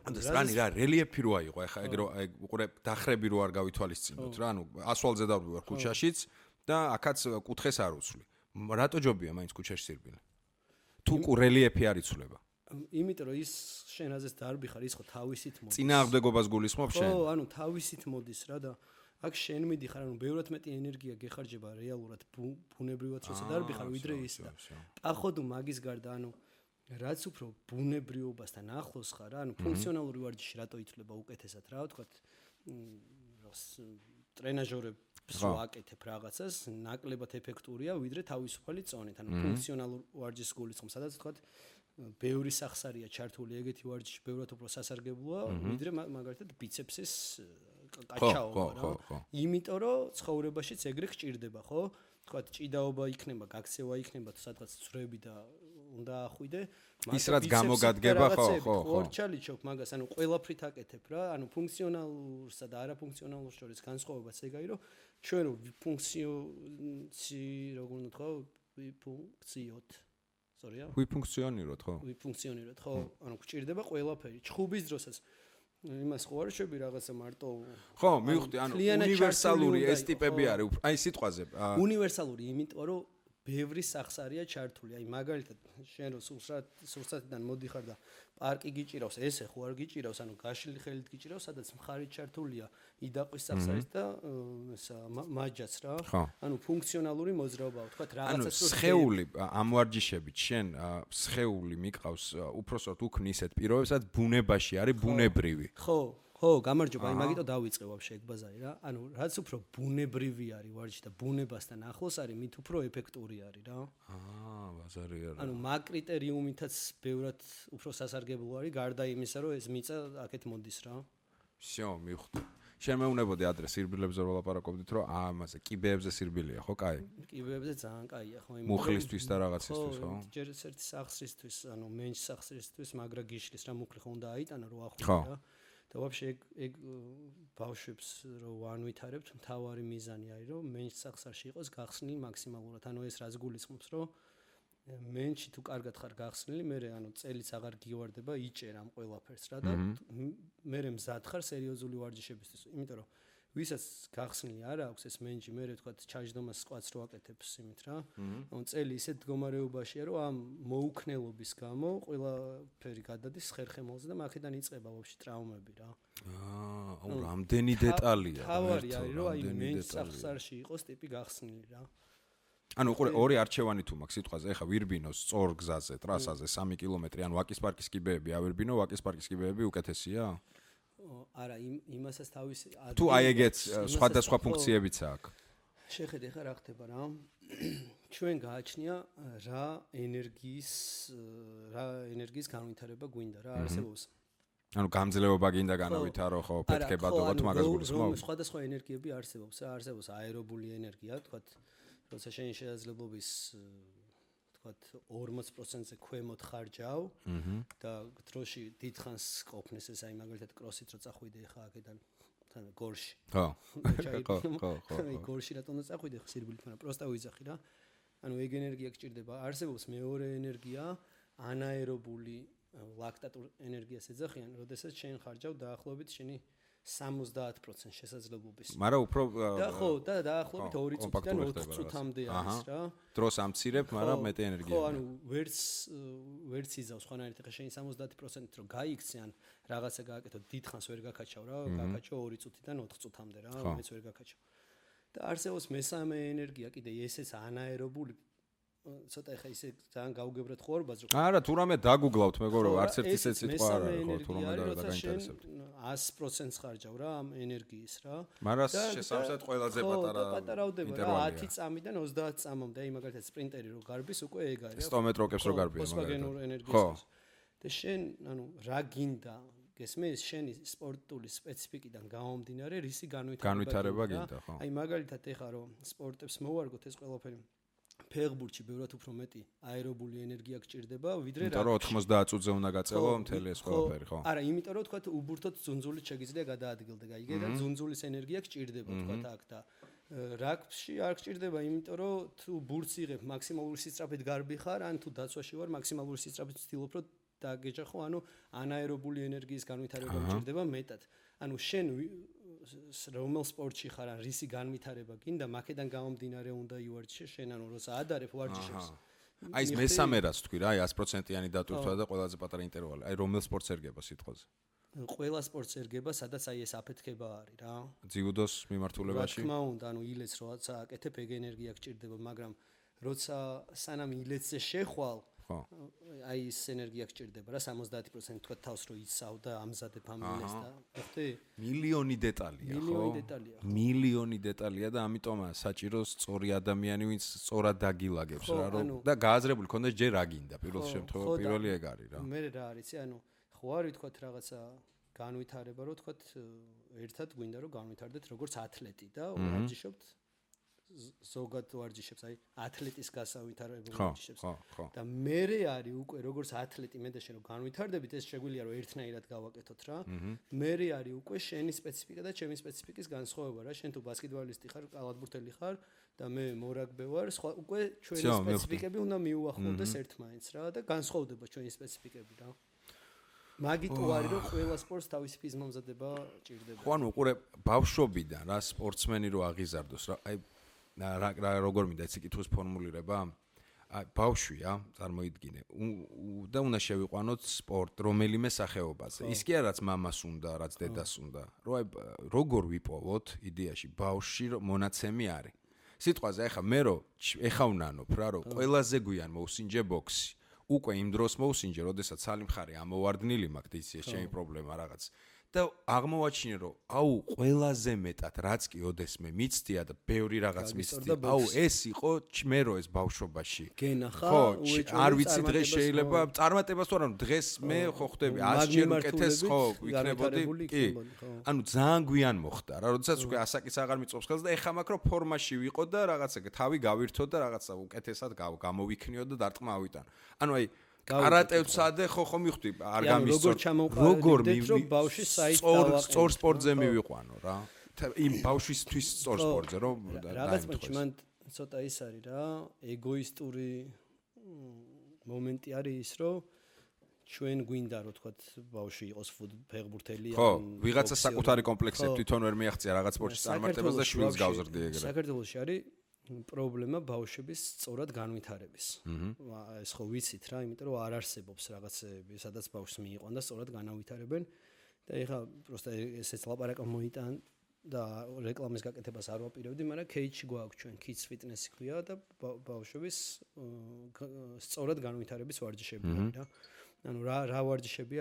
A: რანი რა რელიეფი რო აიყო ეხა ეგ რო უყურე დახრები რო არ გავითვალისწინოთ რა ანუ ასვალზე დავდივარ ქუჩაშიც და აქაც კუთხეს არ უცვლი რატო ჯობია მაინც ქუჩაში სირბილე თუ რელიეფი არ იცვლება
B: იმიტომ რომ ის შენ აზეს დარბი ხარ ის ხო თავისით მოდის
A: წინააღმდეგობას გულისხმობ შენ
B: ხო ანუ თავისით მოდის რა და აქ შენ მიდიხარ ანუ ბევრად მეტი ენერგია გეხარჯება რეალურად ბუნებრივად როცა დარბი ხარ ვიდრე ის და პაходу მაგის გარდა ანუ რაც უფრო ბუნებრიობასთან ახლოს ხარ, ანუ ფუნქციონალური ვარჯიში რატო ითვლება უკეთესად რა ვთქვათ, ტრენაჟორებს ვაკეთებ რაღაცას, ნაკლებად ეფექტურია, ვიდრე თავისუფალი წონით, ანუ ფუნქციონალურ ვარჯიშს გულისხმობ, სადაც ვთქვათ, ბევრი სახსარია ჩართული ეგეთი ვარჯიში, ბევრად უფრო სასარგებლოა, ვიდრე მაგალითად ბიცეპსის კაჩაობა რა. იმიტომ რომ ცხოვრებაშიც ეგრე გჭირდება, ხო? ვთქვათ, ჭიდაობა იქნება, გაქცევა იქნება, თუ სადღაც ცვრები და უნდა ახვიდე
A: ის რაც გამოგადგება ხო
B: ორჩალიჩობ მაგას ანუ ყველაფრით აკეთებ რა ანუ ფუნქციონალურსა და არაფუნქციონალურ შორის განსხვავებაც ეგაი რომ ჩვენ როგორ უნდა თქვა ვიფუნქციოთ სორია
A: ვიფუნქციონიროთ
B: ხო ანუ გჭირდება ყველაფერი ჩხუბის დროსაც იმას ხო არ შეები რაღაცა მარტო
A: ხო მივხვდი ანუ უნივერსალური ეს ტიპები არის აი სიტყვაზე
B: უნივერსალური იმიტომ რომ ბევრი სახსარია ჩართული. აი მაგალითად შენ რო სურსათიდან მოდიხარ და პარკი გიჭირავს, ესე ხო არ გიჭირავს, ანუ გაშლილი ხელით გიჭირავს, სადაც მხარი ჩართულია იდაყვის სახსარის და ესა მაჯაც რა. ანუ ფუნქციონალური მოძრაობაა, თქვა რაღაცას რო
A: სხეული ამ ვარჯიშებით შენ სხეული მიყავს უпроსოდ უქმნი ისეთ პირობებს, სადაც ბუნებაში არის ბუნებრივი.
B: ხო, გამარჯობა, აი მაგიტო დავიწყე ვაფშე ეგ ბაზარი რა. ანუ რაც უფრო ბუნებრივი არის ვარჯიში და ბუნებასთან ახლოს არის, მით უფრო ეფექტური არის რა.
A: ბაზარი არა.
B: ანუ მაგ კრიტერიუმითაც ბევრად უფრო სასარგებლო არის, გარდა იმისა, რომ ეს მიწა აქეთ მოდის რა.
A: всё, მივხვდი. შენ მეუნებოდი ადრე სირბილებზე რო ლაპარაკობდით, რომ ამაზე კიბეებზე სირბილია, ხო, კაი?
B: კიბეებზე ძალიან კაია, ხო, იმ
A: მუხლისთვის და რაღაცისთვის, ხო?
B: ჯერ ერთი სახსრისთვის, ანუ მენჩ სახსრისთვის, მაგრა გიშლის რა მუხლი ხო უნდა აიტანა რო ახვიდე რა. და ვაფშე ეგ ბავშვებს რო ვანვითარებთ, მთავარი მიზანი არის, რომ მენჩ სახსარში იყოს გახსნილი მაქსიმალურად. ანუ ეს რაც გულისხმობს, რომ მენჩი თუ კარგად ხარ გახსნილი, მე ანუ წელიც აღარ გივარდება, იჭერ ამ ყველაფერს რა და მე მზად ხარ სერიოზული ვარჯიშებისთვის. იმიტომ რომ ვისაც გახსნილი არ აქვს ეს მენჯი, მე ვთქვათ, ჩაჯდომას სკვატს რო აკეთებს იმით რა. ანუ წელი ისეთ მდგომარეობაშია, რომ ამ მოუქნელობის გამო ყველაფერი გადადის ხერხემალზე და მაქედან იწყება ვაფშე ტრავმები რა.
A: აუ რამდენი დეტალია.
B: თავარი არის, რომ აი მენჯ სახსარში იყოს ტიპი გახსნილი რა.
A: ანუ უყურე ორი არჩევანი თუ მაქვს სიტყვაზე, ეხა ვირბინოს სწორ გზაზე, ტრასაზე 3 კილომეტრი, ანუ ვაკის პარკის კიბეები ავირბინო, ვაკის პარკის კიბეები უკეთესია?
B: არა, იმასაც თავისი
A: თუ აი ეგეც სხვადასხვა ფუნქციებიც აქვს.
B: შეხედე ხა რა ხდება რა. ჩვენ გააჩნია რა ენერგიის განვითარება გვინდა რა არსებობს.
A: ანუ გამძლეობა გინდა განავითარო ხო, ფეთქებადობოთ მაგას გულისხმობ.
B: სხვადასხვა ენერგიები არსებობს, არსებობს აერობული ენერგია, თქვათ, როცა შენ შესაძლებლობის თქვათ 40%-ზე ქვემოთ ხარჯავ და დროში დიდხანს ყოფნეს ეს აი მაგალითად კროსით რო წახვიდე ხა აქედან თან გორში.
A: ხო.
B: აი გორში რატომ უნდა წახვიდე ხა სირბილით, მაგრამ პროსტა ვიზახი რა. ანუ ეგ ენერგია გჭირდება. არსებობს მეორე ენერგია, ანაერობული ლაქტატურ ენერგიას ეძახიან, როდესაც შენ ხარჯავ დაახლოებით შენი 70% შესაძლებლობის.
A: მაგრამ უფრო
B: და ხო, და დაახლოებით 2 წუთიდან 4 წუთამდე არის რა.
A: დროს ამცირებ, მაგრამ მეტი ენერგია.
B: ხო, ანუ ვერც იზავს ხანარით ხა შენ 70%-ით რომ გაიქცე ან რაღაცა გააკეთო, დიდხანს ვერ გაკაჩავ რა, გაკაჩო 2 წუთიდან 4 წუთამდე რა, მეც ვერ გაკაჩავ. და არსებობს მესამე ენერგია კიდე ესეც ანაერობული ცოტა ეხა ისე ძალიან გავუგებრეთ ხوارბას რომ
A: არა თუ რამე დაგუგლავთ მეგობრო არც ერთი ისეთ სიტყვა არ არის ხო თუ რამე დაგაინტერესებთ
B: 100% ხარჯავ რა ამ ენერგიის რა
A: მაგრამ შესაბამისად ყველაზე
B: პატარავდება რა 10 წამიდან 30 წამამდე აი მაგალითად სპრინტერი რო გარბის უკვე ეგ არის
A: 100 მეტროკებს რო გარბია
B: მაგალითად ხო და შენ ანუ რა გინდა გესმის შენი სპორტული სპეციფიკიდან გამომდინარე რისი
A: განვითარება გინდა ხო
B: აი მაგალითად ეხა რომ სპორტებს მოვარგოთ ეს ყველაფერი ფეხბურთში ბევრად უფრო მეტი აერობული ენერგია გჭირდება ვიდრე
A: რა 90 წუთზე უნდა გაწევო მთელი ეს ყველაფერი ხო
B: არა იმიტომ რომ თქვა უბურთოდ ძუნძულით შეგიძლია გადაადგილდე გაიგე და ძუნძულის ენერგია გჭირდება თქვა აქ და რაგბში არ გჭირდება იმიტომ რომ თუ ბურთს იღებ მაქსიმალური სისწრაფით გარბი ხარ ან თუ დაცვაში ვარ მაქსიმალური სისწრაფით ვცდილობ რომ დაგეჯახო ანუ ანაერობული ენერგიის განვითარება გჭირდება მეტად ანუ შენ რომელ სპორტში ხარ ან რისი განვითარება გინდა მაკედან გამომდინარე უნდა ივარჯიშე შენ ანუ როცა ადარებ ვარჯიშებს
A: აი ეს მესამე რას თქვი რა აი 100%-იანი დატვირთვა და ყველაზე პატარა ინტერვალი აი რომელ სპორტს ერგება სიტყვაზე
B: ყველა სპორტს ერგება სადაც აი ეს აფეთქება არის რა
A: ძიუდოს მიმართულებაში
B: რა თქმა უნდა ანუ ილეთს როცა აკეთებ ეგ ენერგია გჭირდება მაგრამ როცა სანამ ილეთზე შეხვალ აი ეს ენერგია გჭირდება რა 70% თქვა თავს რო იცავ და ამზადებ ამ ილეთს და ხოთი
A: მილიონი დეტალია ხო მილიონი დეტალია და ამიტომაა საჭირო სწორი ადამიანი ვინც სწორად დაგილაგებს რა რომ და გააზრებული ქონდეს ჯერ რა გინდა პირველ შემთხვევაში პირველი ეგ არის რა
B: მე რა არიცი ანუ ხო არ ვთქვათ რაღაცა განვითარება რომ ვთქვათ ერთად გვინდა რომ განვითარდეთ როგორც ათლეტი და ვარჯიშობთ ზოგად ვარჯიშებს აი ათლეტის გასავითარებელ ვარჯიშებს და მერე არის უკვე როგორც ათლეტი მე და შენ რომ განვითარდებით ეს შეგვიძლია რომ ერთნაირად გავაკეთოთ რა მერე არის უკვე შენი სპეციფიკა და ჩემი სპეციფიკის განსხვავება რა შენ თუ ბასკეტბოლისტი ხარ კალათბურთელი ხარ და მე მორაგბე ვარ სხვა უკვე ჩვენი სპეციფიკები უნდა მიუახლოვდეს ერთმანეთს რა და განსხვავდება ჩვენი სპეციფიკები რა მაგით არის რომ ყველა სპორტს თავისი ფიზმომზადება ჭირდება
A: ხო ანუ უყურე ბავშვობიდან რა სპორტსმენი რო აღიზარდოს რა აი რა როგორ მინდა ეს კითხვის ფორმულირება აი ბავშვია წარმოიდგინე და უნდა შევიყვანოთ სპორტ რომელიმე სახეობაზე ის კი არაც მამას უნდა რაც დედას უნდა რომ აი როგორ ვიპოვოთ იდეაში ბავშვი მონაცემი არის სიტყვაზე ახლა მე რო ეხა ვნანობ რა რომ ყველაზე გვიან მოусინჯე ბოქსი უკვე იმ დროს მოусინჯე როდესაც სალი მხარე ამოვარდნილი მაქვს ის ჩემი პრობლემა რაღაც და აღმოვაჩინე რომ აუ ყველაზე მეტად რაც კი ოდესმე მიცდია და ბევრი რაღაც მიცდია აუ ეს იყო მე რო ეს ბავშვობაში
B: გენახა
A: არ ვიცი დღეს შეიძლება წარმატებას თუ არა დღეს მე ხო ხდები 100 ჯერ უკეთეს ხო ვიქნებოდი კი ანუ ძალიან გვიან მოხდა რა როდესაც უკვე ასაკის აღარ მიწობს ხელს და ეხა მაქვს რომ ფორმაში ვიყო და რაღაცა თავი გავირთო და რაღაცა უკეთესად გამოვიქნიო და დარტყმა ავიტანო ანუ აი კარატევსადე ხო მიხვდი არ გამისწორ
B: როგორ რომ ბავშვი საით
A: სწორ სპორტზე მივიყვანო რა იმ ბავშვისთვის სწორ სპორტზე რომ
B: რაღაც მან ცოტა ის არის რა ეგოისტური მომენტი არის ის რომ ჩვენ გვინდა რომ თქვათ ბავშვი იყოს ფეხბურთელი
A: ხო ვიღაცა საკუთარი კომპლექსები თვითონ ვერ მიაღწია რაღაც სპორტში წარმატებას და შვილს გავზრდი ეგრე
B: საქართველოში არის პრობლემა ბავშვების სწორად განვითარების. ეს ხო ვიცით რა, იმიტომ რომ არ არსებობს რაღაცები, სადაც ბავშვს მიიყვან და სწორად განავითარებენ და ეხლა პროსტა ესეც ლაპარაკა მოიტან და რეკლამის გაკეთებას არ ვაპირებდი, მაგრამ кейჯი გვაქვს ჩვენ kids fitness ქვია და ბავშვების სწორად განვითარების ვარჯიშები არის რა. ანუ რა ვარჯიშები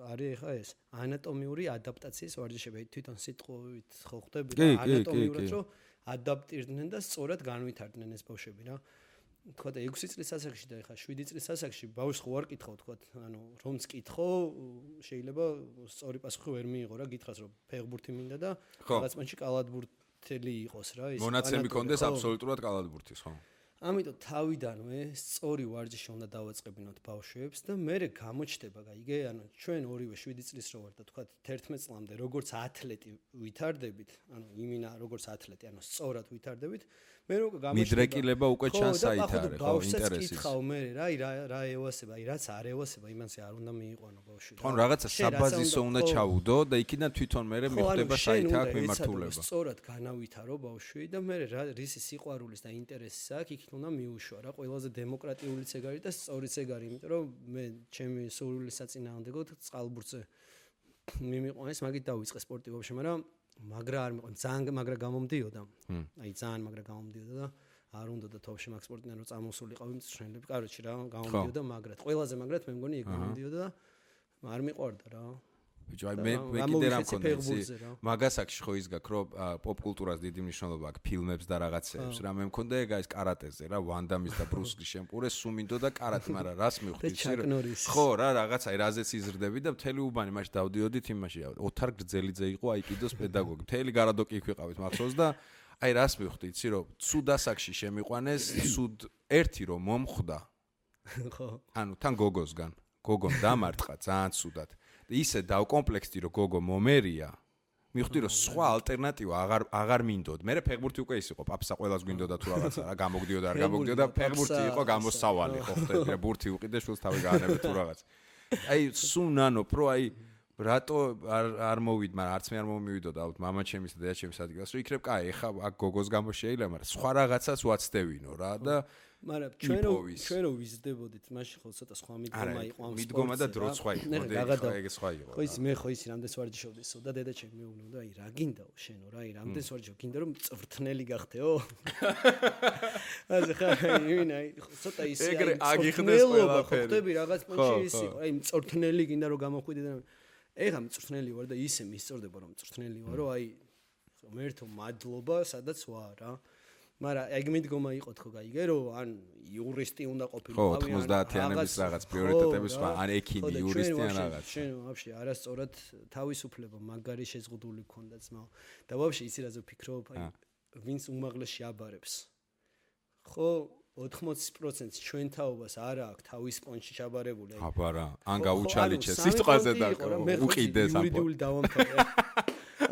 B: არის ეხლა ეს ანატომიური ადაპტაციის ვარჯიშები, თვითონ სიტყვით ხო ხდები და ანატომიურად რომ ადაპტირდნენ და სწორად განვითარდნენ ეს ბავშვები რა. თქვა და 6 წლის ასაკში და ეხლა 7 წლის ასაკში ბავშვს ხო არ კითხავ თქვა ანუ რომც კითხო შეიძლება სწორი პასუხი ვერ მიიღო რა გითხრას რომ ფეხბურთი მინდა და რაღაც მანჩი კალათბურთელი იყოს რა ის
A: მონაცემი კონდეს აბსოლუტურად კალათბურთის ხო
B: ამიტომ თავიდანვე სწორი ვარჯიში უნდა დავაწყებინოთ ბავშვებს და მე გამოჩნდება გაიგე ანუ ჩვენ ორივე 7 წლის რო ვარ და თქვა 11 წლამდე როგორც ათლეტი ვითარდებით ანუ იმინა როგორც ათლეტი ანუ სწორად ვითარდებით მე რო გამოჩნდება
A: მიდრეკილება უკვე ჩანს საით არის ხო ინტერესი
B: კითხავ მე რა ევასება აი რაც არ ევასება იმანსე არ უნდა მიიყვანო ბავშვი
A: ხო რაღაცა საბაზისო უნდა ჩაუდო და იქიდან თვითონ მე მიხვდება საით აქვს მიმართულება
B: სწორად განავითარო ბავშვი და მე რისი სიყვარულის და ინტერესის აქვს იქ უნდა მიუშვა რა ყველაზე დემოკრატიულიც ეგ არის და სწორიც ეგ არის იმიტომ რომ მე ჩემი სურვილის საწინააღმდეგოდ წყალბურთზე მიმიყვანეს მაგით დავიწყე სპორტი ვაფშე მაგრამ მაგრა არ მიყვანს ძალიან მაგრა გამომდიოდა აი ძალიან მაგრა გამომდიოდა და არ უნდა და თოვში მაგ სპორტიდან რომ წამოსულიყავი მწვრთნელები კაროჩი რა გამომდიოდა მაგრად ყველაზე მაგრად მე მგონი ეგ გამომდიოდა და არ მიყვარდა რა
A: ბიჭო, აი მე კიდე რა მქონდა ისი. მაგასაკში ხო ის გაქვს, რომ პოპ კულტურას დიდი მნიშვნელობა აქვს ფილმებს და რაღაცეებს. რა მე მქონდა ეგ ის კარატეზე რა, ვან დამის და ბრუს ლის შემპურე, სუმინდო და კარატე, მაგრამ რას მივხვდი ისი. ხო რა, რაღაცა რაზეც იზრდები და მთელი უბანი მაშინ დავდიოდით იმაში. ოთარ გრძელიძე იყო აიკიდოს პედაგოგი. მთელი გარადოკი იქ ვიყავით მახსოვს და აი რას მივხვდი იცი რომ ცუდ ასაკში შემიყვანეს, ცუდ ერთი რომ მომხვდა. ხო. ანუ თან გოგოსგან. გოგომ დამარტყა ძალიან ცუდად. ისე დავკომპლექსდი რომ გოგო მომერია. მივხვდი რომ სხვა ალტერნატივა აღარ მინდოდ. მე ფეხბურთი უკვე ის იყო, პაპსა ყველას გვინდოდა თუ რაღაცა რა, გამოგდიოდა არ გამოგდიოდა, ფეხბურთი იყო გამოსავალი, ხო ხტები რა, ბურთი უყიდე შულს თავი გაანებე თუ რაღაც. აი სულ ნანო პრო აი რატო არ მოვიდ, მაგრამ არც მე არ მომივიდოდა ალბათ მამაჩემის და დედაჩემის ადგილას, რომ იქნებ კაი, ეხა აქ გოგოს გამო შეიძლება, მაგრამ სხვა რაღაცას ვაცდევინო რა და
B: მაგრამ ჩვენ რო ვიზრდებოდით, მაშინ ხო ცოტა სხვა მიდგომა იყო ამ სპორტზე.
A: მიდგომა და დრო სხვა იყო, ეგ სხვა იყო.
B: ხო ის მე ხო ისი რამდენს ვარჯიშობდისო და დედაჩემი მეუბნებოდა, აი რა გინდაო შენო რა, აი რამდენს ვარჯიშობ, გინდა რომ მწვრთნელი გახდეო? ასე ხა აი ცოტა ისი
A: აგიხდეს ყველაფერი.
B: ხტები რაღაც პონჩი ის იყო, აი მწვრთნელი გინდა რომ გამოხვიდე და ეხა მწვრთნელი ვარ და ისე მისწორდება რომ მწვრთნელი ვარ, რომ აი ღმერთო მადლობა, სადაც ვარ რა. მაგრამ ეგ მიდგომა იყო თქო გაიგე რომ ან იურისტი უნდა ყოფილიყავი
A: ან 90-იანების რაღაც პრიორიტეტების ან ექიმი იურისტი ან რაღაც
B: შენ ვაფშე არასწორად თავისუფლება მაგარი შეზღუდული გქონდა ძმაო და ვაფშე იცი რაზე ვფიქრობ აი ვინც უმაღლესში აბარებს ხო 80% ჩვენ თაობას არა აქვს თავის პონჩი ჩაბარებული
A: აბარა ან გაუჩალიჩეს სიტყვაზე და უყიდეს ამ
B: იურიდიული დავამთავრე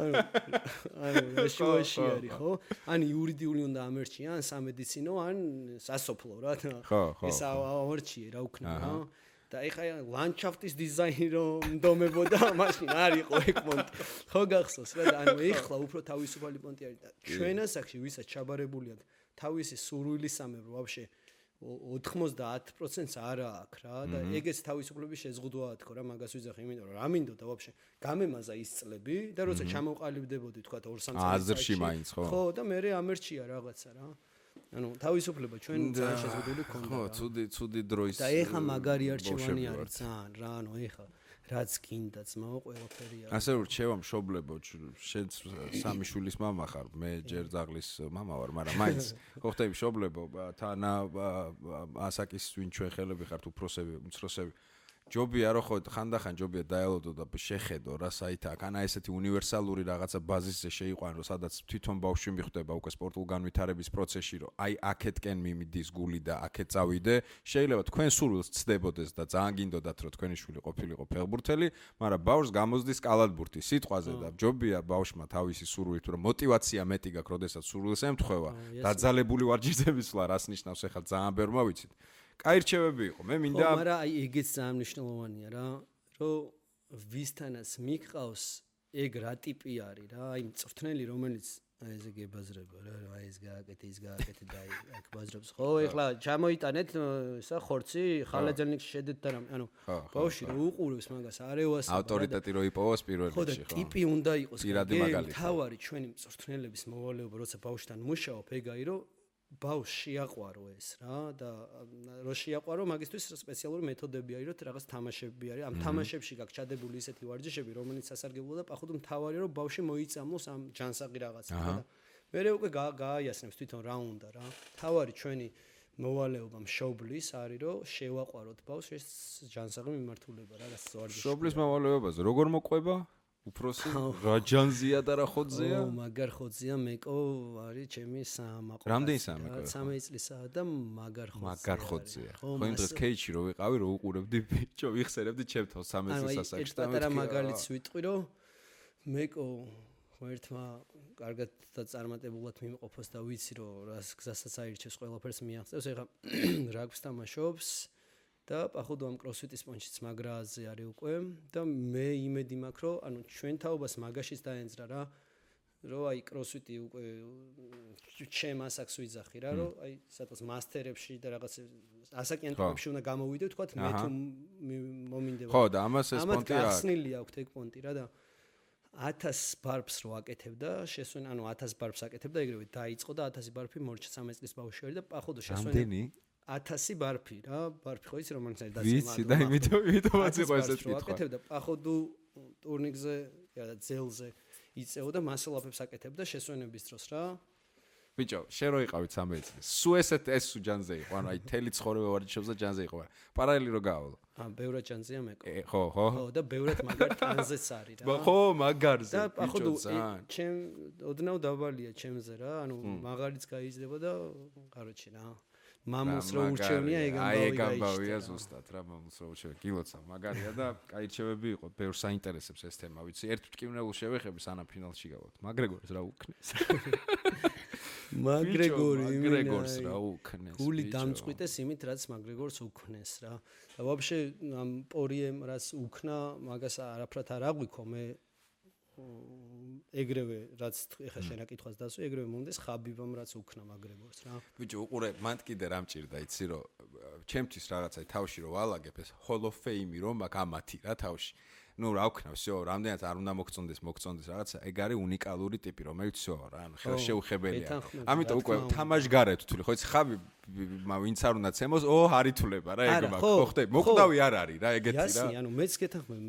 B: ანუ შუაში არის ხო? ან იურიდიული უნდა ამერჩი, ან სამედიცინო, ან სასოფლო რა. ეს ამერჩი რა უქნა რა. და ეხა ლანდშაფტის დიზაინი რომ ნდომებოდა, მაშინ არ იყო ეგ პონტი. ხო გახსოვს რა და ანუ ეხლა უფრო თავისუფალი პონტი არის და ჩვენ ასაკში ვისაც ჩაბარებული აქვს თავისი სურვილისამებრ ვაფშე 90%-ს არა აქვს რა და ეგეც თავისუფლების შეზღუდვაა თქო რა მაგას ვიძახი იმიტომ რომ რა მინდოდა ვაფშე გამემაზა ის წლები და როცა ჩამოყალიბდებოდი თქვა 2-3 წელი
A: აზრში მაინც
B: ხო და მე ამერჩია რაღაცა რა ანუ თავისუფლება ჩვენ ძალიან შეზღუდული ქონდა
A: ხო ცუდი დროის
B: და ეხა მაგარი არჩევანი არის ძალიან რა ანუ ეხა რაც გინდა ძმაო ყველაფერი არის
A: ასე რჩევა მშობლებო შენ სამი შვილის მამა ხარ მე ჯერ ძაღლის მამა ვარ მაგრამ მაინც ხო ხტები მშობლებო თანა ასაკის ვინ ჩვენ ხელები ხართ უფროსები უმცროსები ჯობია რომ ხო ხანდახან ჯობია დაელოდო და შეხედო რა საით აქ ანა ესეთი უნივერსალური რაღაცა ბაზისზე შეიყვანო სადაც თვითონ ბავშვი მიხვდება უკვე სპორტულ განვითარების პროცესში რომ აი აქეთკენ მიმიდის გული და აქეთ წავიდე შეიძლება თქვენ სურვილს ცდებოდეს და ძალიან გინდოდათ რომ თქვენი შვილი ყოფილიყო ფეხბურთელი მაგრამ ბავშვს გამოზდის კალათბურთი სიტყვაზე და ჯობია ბავშვმა თავისი სურვილი თუ რომ мотиваცია მეტი გაქვს როდესაც სურვილს ემთხვევა დაძალებული ვარჯიშების სვლა რას ნიშნავს ახლა ძალიან ბევრმა ვიცით კაი რჩევები იყო მე მინდა
B: ხო მაგრამ აი ეგეც ძალიან მნიშვნელოვანია რა რომ ვისთანაც მიყავს ეგ რა ტიპი არის რა აი მწვრთნელი რომელიც აი ესე გებაზრება რა აი ეს გააკეთე ის გააკეთე და აი აქ ბაზრობს ხო ეხლა ჩამოიტანეთ ისა ხორცი ხალაძელნიკში შედეთ და რამე ანუ ბავშვი რო უყურებს მაგას არევას
A: ავტორიტეტი რო იპოვოს პირველ რიგში
B: ხო და ტიპი უნდა იყოს თავარი ჩვენი მწვრთნელების მოვალეობა როცა ბავშვთან მუშაობ ეგაი რომ ბავშვს შეაყვარო ეს რა და რო შეაყვარო მაგისთვის სპეციალური მეთოდები არის რომ რაღაც თამაშები არის ამ თამაშებში გაქვს ჩადებული ისეთი ვარჯიშები რომელიც სასარგებლოა და პახუთ მთავარია რომ ბავშვი მოიწამლოს ამ ჯანსაღი რაღაცა და მე უკვე გააიასნებს თვითონ რა უნდა რა თავარი ჩვენი მოვალეობა მშობლის არის რომ შევაყვაროთ ბავშვს ეს ჯანსაღი მიმართულება რა ვარჯიში
A: მშობლის მოვალეობაზე როგორ მოყვება უფროსი რა ჯანზია და რა ხოძეა?
B: მაგარ ხოძეა მეკო არის ჩემი საამაყო.
A: რამდენი საამაყო?
B: 13 წლისაა და მაგარ ხოძეა.
A: მაგარ ხოძეა. ხო იმ დღეს კეიჩი რო ვიყავი რო უყურებდი ბიჭო ვიხსენებდი ჩემთან 13 წლის ასაკში
B: და მეთქი. მაგალითს ვიტყვი რომ მეკო ერთმა კარგად და წარმატებულად მიმყოფოს და ვიცი რომ რას გზასაც აირჩევს ყველაფერს მიაღწევს. ეხლა რაგბს თამაშობს და პახუდო ამ კროსფიტის პონჩიც მაგრაზე არის უკვე და მე იმედი მაქვს რომ ანუ ჩვენ თაობას მაგაშიც დაენძრა რა რომ აი კროსფიტი უკვე ჩემ ასაკს ვიძახი რა რომ აი სადღაც მასტერებში და რაღაც ასაკიან ტიპებში უნდა გამოვიდე თქვა მე თუ მომინდება
A: ხო და ამას ეს პონტი
B: არის გახსნილი აქვს ეგ პონტი რა და 1000 ბარბს რო აკეთებდა შესვენ ანუ 1000 ბარბს აკეთებდა ეგრევე დაიწყო და 1000 ბარბი მორჩა 13 წლის ბავშვი არის და პახუდო შესვენ
A: რამდენი
B: 1000 ბარფი რა ბარფი ხო იცი რომ მაინც არის
A: ვიცი და იმითომაც იყო ესეთ კითხვა
B: აკეთებდა პახოდუ ტურნირზე და ძელზე იწეოდა მასალაფებს აკეთებდა შესვენების დროს რა.
A: ბიჭო, შენ რო იყავით 13 წლის. სულ ეს ჯანზე იყო, ანუ აი თელი ცხოვრება ვარჯიშობს და ჯანზე იყო. პარალელი რო გაავალო.
B: ბევრად ჯანზეა მეკო.
A: ხო.
B: ხო, და ბევრად მაგარ ტანზეც არის რა.
A: ხო, მაგარზე.
B: ბიჭო, ჩემ ოდნავ დაბალია ჩემზე რა, ანუ მაგარიც გაიზრდება და კაროჩი რა. მამულს რო ურჩევნია
A: ეგამბავია ზუსტად რა მამულს რო ურჩევნია კილოცა მაგარია და კაი რჩევები იყო ბევრ საინტერესებს ეს თემა ვიცი ერთ მტკივნეულ შევეხები სანამ ფინალში გავართ მაგრეგორს რა უკნეს მაგრეგორს რა უკნეს
B: გული დამწყვიტეს იმით რაც მაგრეგორს უკნეს რა და ვაფშე ამ პორიემ რაც უკნა მაგას არაფრად არ აღვიქო მე ეგრევე რაც ეხა შენ აკითხვას დასვი ეგრევე მომდეს ხაბიბამ რაც უკნა მაგრეგორს რა
A: ბიჭო უყურე მან კიდე რა მჭირდა იცი რომ ჩემთვის რაღაცა თავში რომ ვალაგებ ეს hall of fame რომ მაგ ამათი რა თავში ну რა ვქნა всё რამდენად არ უნდა მოგწონდეს რაღაცა ეგ არის უნიკალური ტიპი რომელიც всё რა ანუ ხელშეუხებელია ამიტომ უკვე თამაშგარეთ თვლი ხო იცი ხაბი ვინც არ უნდა ცემოს არითულება რა ეგ მაგ ხო ხდები მოკვდავი არ არის რა ეგეთი რა
B: იასი ანუ მეც გეთანხმები